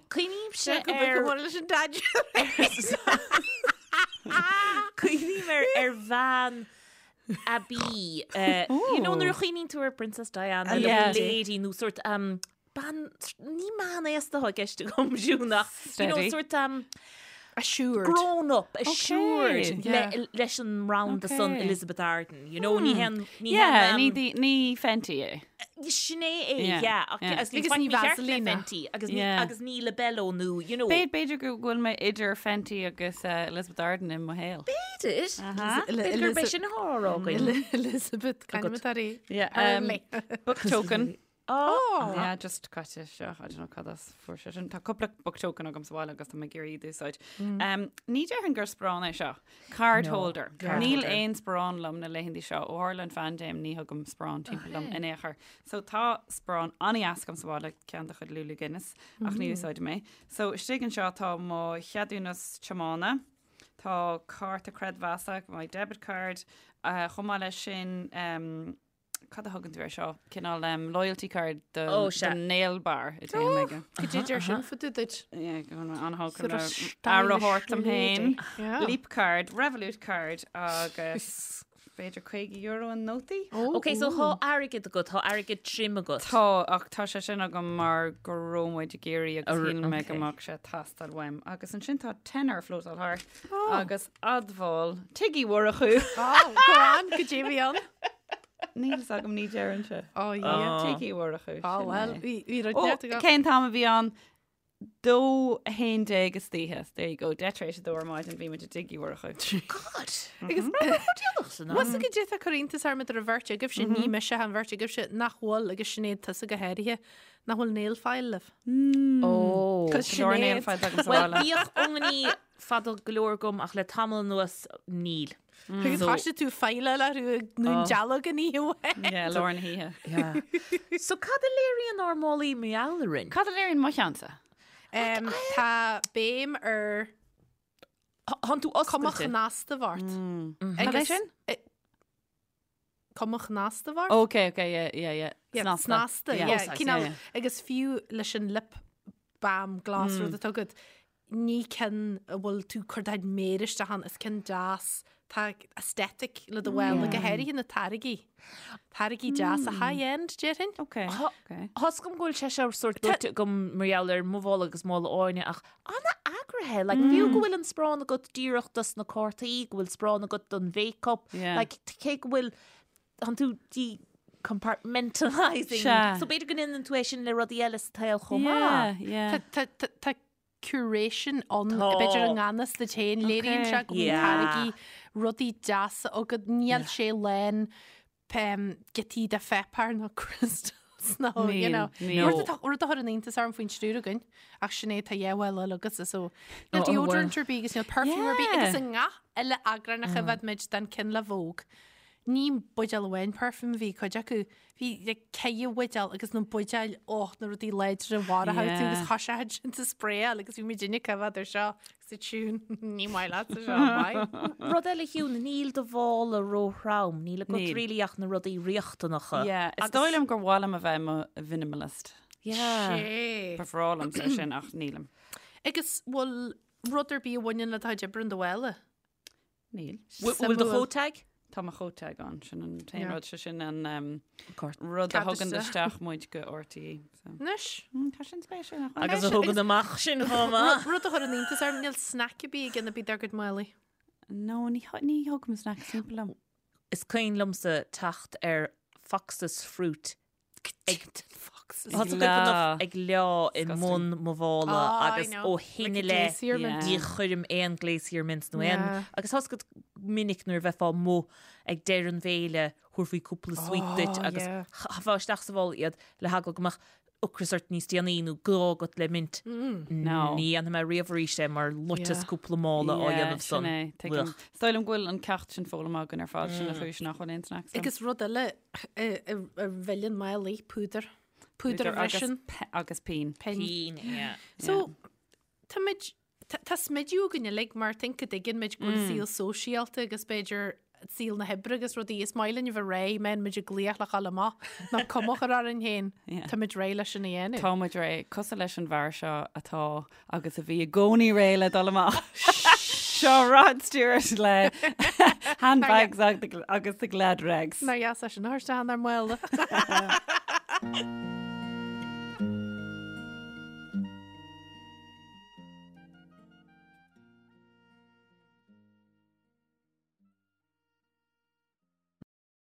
Cuimhnímse Go ar mór leis an dad. bhean aibí, you know, nuair a chuimhníonn tú ar Princess Diana, Ah, yeah. lady nó sort um, bean, ní meán aosta atá i gceist agam Siún ach, you know, Steady. sort um, Assured. grown up, assured Yeah. le, leis an mbranda san Okay. Elizabeth Arden, you know, ní hen, ní Yeah, hen, ní um, di- ní Fenty é. Sin é é, Yeah, yeah, ach yeah. agus ní Agus ní faic mícheart le Vaseline. Fenty, agus ní, Yeah. agus ní Labello nó, you know. B'fhéidir b'fhéidir go bhfuil mé idir Fenty agus uh, Elizabeth Arden i mo shaol. B'fhéidir. Aha. B'fhéidir gurb é sin atá á rá againn. Elizabeth, Agat. Yeah, um, Hurley. book token. Oh. Yeah, just caite isteach, I don't know cad as fuair sé sin. Tá cúpla book token agam sa bhaile agus tá mé ag iarraidh iad a úsáid. Um, ní déarfainn gur sparán é seo. Card No, holder. card Níl holder. aon sparán liom na laethanta seo ó tharla an phaindéim ní thugaim sparán timpeall liom in aon chor. So tá sparán an-deas agam sa bhaile ceann de chuid Lulu Guinness ach ní úsáidim é. So istigh anseo tá mo cheadúnas tiomána, tá cárta creidmheasa, my debit card, uh, chomh maith leis sin um, Cad a thugann tú air seo? Cineál um, loyalty card do, Ó, sea. do nail bar a dtéim aige. Go dtí deir sin fadú duit. Yeah, go bhfuil mé an-thógtha Sort of le stylish aire a thabhairt dom féin. lady. Yeah. Leap card, Revolut card agus b'fhéidir €50 i nótaí? Oh, Ok, so tá airgead agat, tá airgead tirim agat. Tá, ach tá sé sin agam mar go raibh muid ag iarraidh agus Ar- shíl mé go ok. mbeadh sé ag teastáil uaim. Agus ansin tá tenner flótáil thart agus admháil Tigh Uí Mhurchú. Oh, go on, go dtí bhí ann. Níl fhios agam ní deireann sé. Oh, yeah. Tigh Uí Mhurchú. Oh, sin well, é. bhí bhí rud Ó, neart agam. cén t-am a bhí ann? 2:11 istoíche. There you go. 2:10 tar éis a dó ar maidin bhí muid i dTigh Uí Mhurchú. God! Agus Déanach san am. Bhfuil fhios agat goidé tá ag cur iontas orm idir an bheirt agaibhse, ní mise an bheirt agaibhse, nach bhfuil agus Sinéad tusa go háirithe, nach bhfuil nail file libh. Ó. Cos Go leor nail Sinéad. files agam sa Well, bhaile. bhíodh ionaí fada go leor agam ach le tamall anuas níl. Agus thoisigh tú file le thú ag nó dealg an oíche amháin. Yeah, lár na hoíche. Yeah. So cad a léiríonn ár málaí mar gheall orainn? Cad a léiríonn mo cheannsa? Em, Tá béim ar Thánn tú cuma oscailte. chnasta ort. Cad é Agus- sin? Eh, Cuma chnasta ort? Ok, ok, yeah, yeah, yeah. Yeah, Snasta. Snasta, Yeah. yeah. Oh, Cineál, yeah. Agus fiú leis an lip balm glas rud atá agat, ní ceann a bhfuil tú ag cur do chuid méire isteach ann, is ceann deas, tá aesthetic le do bhfuil, go háirithe na táirgí. Táirgí deasa high-end, déarfainn. Ok, ok. Tá 's agam go bhfuil sé seo sórt dúirt agam mar gheall ar mo mhála agus mála Áine ach an-eagraithe, like fiú go bhfuil an sparán agat díreach dos na cártaí, go bhfuil sparán agat don mhéiceap, Yeah. like cé go bhfuil tánn tú decompartmentalising. Sea. So b'fhéidir go ndéanann tú é sin le rudaí eile sa tsaol chomh maith. Yeah, yeah. Tá- tá- tá- Tá curation ann, Tá. b'fhéidir i ngan fhios duit féin, léiríonn sé go bhfuil Yeah. táirgí rudaí deasa agat, níl sé lán giotaí de pháipéar nó crystals nó, you Níl, know. níl. Rud atá- rud a chuireann iontas orm faoin triúr againn, ach sin é tá dhá mhála eile agatsa, so níl Oh, oh, deodorant ar bith agus níl perfume ar bith Yeah. agus i ngach uile eagrán a choimhéad muid den cinn le Vogue. Ní buidéal amháin perfume a bhí cuid acu, bhí like ceithre bhuidéal agus na buidéil, oh, na rudaí láidre mhara tú Yeah. agus thoisigh siad sin a sprayáil agus bhí muid ag coimhéad ar seo agus a Siún, ní maith leat seo, maith. Rud eile Shiún, níl do mhála róthrom, níl agat Níl. really ach na rudaí riachtanacha. Yeah, is dóigh liom gur mhaith liom a bheith i mo mhinimalist. Yeah. Sé. Ba bhreá liomsa sin ach nílim. Agus bhfuil rud ar bith a bhaineann le do chuid oibre in do mhála? Níl. Bhfuil do Suimiúil. chóta ag? Tá mo chóta ag ann, sin an t-aon Yeah. rud, sé sin an um, Cort. rud a Cead thugann isteach. isteach muid go RTÉ. So. Anois. Mm, Tá sin spéisiúil nach bhfuil? Agus a thugann amach sin chomh maith. Rud a chuireann iontas orm, níl snack ar bith ag duine ar bith dár gcuid málaí. No, ní th- ní thugaim snack timpeall liom. Is cuimhin liomsa teacht ar Fox's Fruit Ag Fox's. Tá tú enough ag leá i Disgusting. mbun mo mhála Oh, I agus know. ó shin i Like a leith glacier mint. ní chuirim aon glacier mints nó aon Yeah. agus tá 's agat minic nuair a bheifeá amuigh ag deireadh an bhéile thabharfaí cúpla sweet duit Oh, agus yeah. chaithfeá isteach sa mhála iad le heagla go mbeadh ocras ort níos déanaí nó gá agat le mint. No. Ní dhéanfaidh mé riamh arís é mar loiteas Yeah. cúpla mála á Yeah, dhéanamh sin san. é, tuigim. Ugh. Is dóigh liom go bhfuil an ceacht sin foghlamtha againn ar fad, sin an chúis nach bhfuil aon snacks agam. Agus rud eile a a mhilleann málaí, púdar. Púdar a agus bhriseann. pe- agus pinn. Pinn. Pinn, yeah. So, tá muid, tá tá smidiú againn uilig mar think go dtuigeann muid go bhfuil saol sóisialta agus b'fhéidir saol na hoibre agus rudaí is maith linn a bheith réidh, mbíonn muid ag glaoch le dhul amach, ná cuma a chur orainn féin. Yeah. Tá muid réidh leis sin a dhéanamh. Tá muid réidh, cosúil leis an bhfear seo atá agus a bhí i gcónaí réidh le dul amach. Seo Rod Stewart le Handbags agus the Glad Rags. Nár dheas é sin a thabhairt isteach inár mála.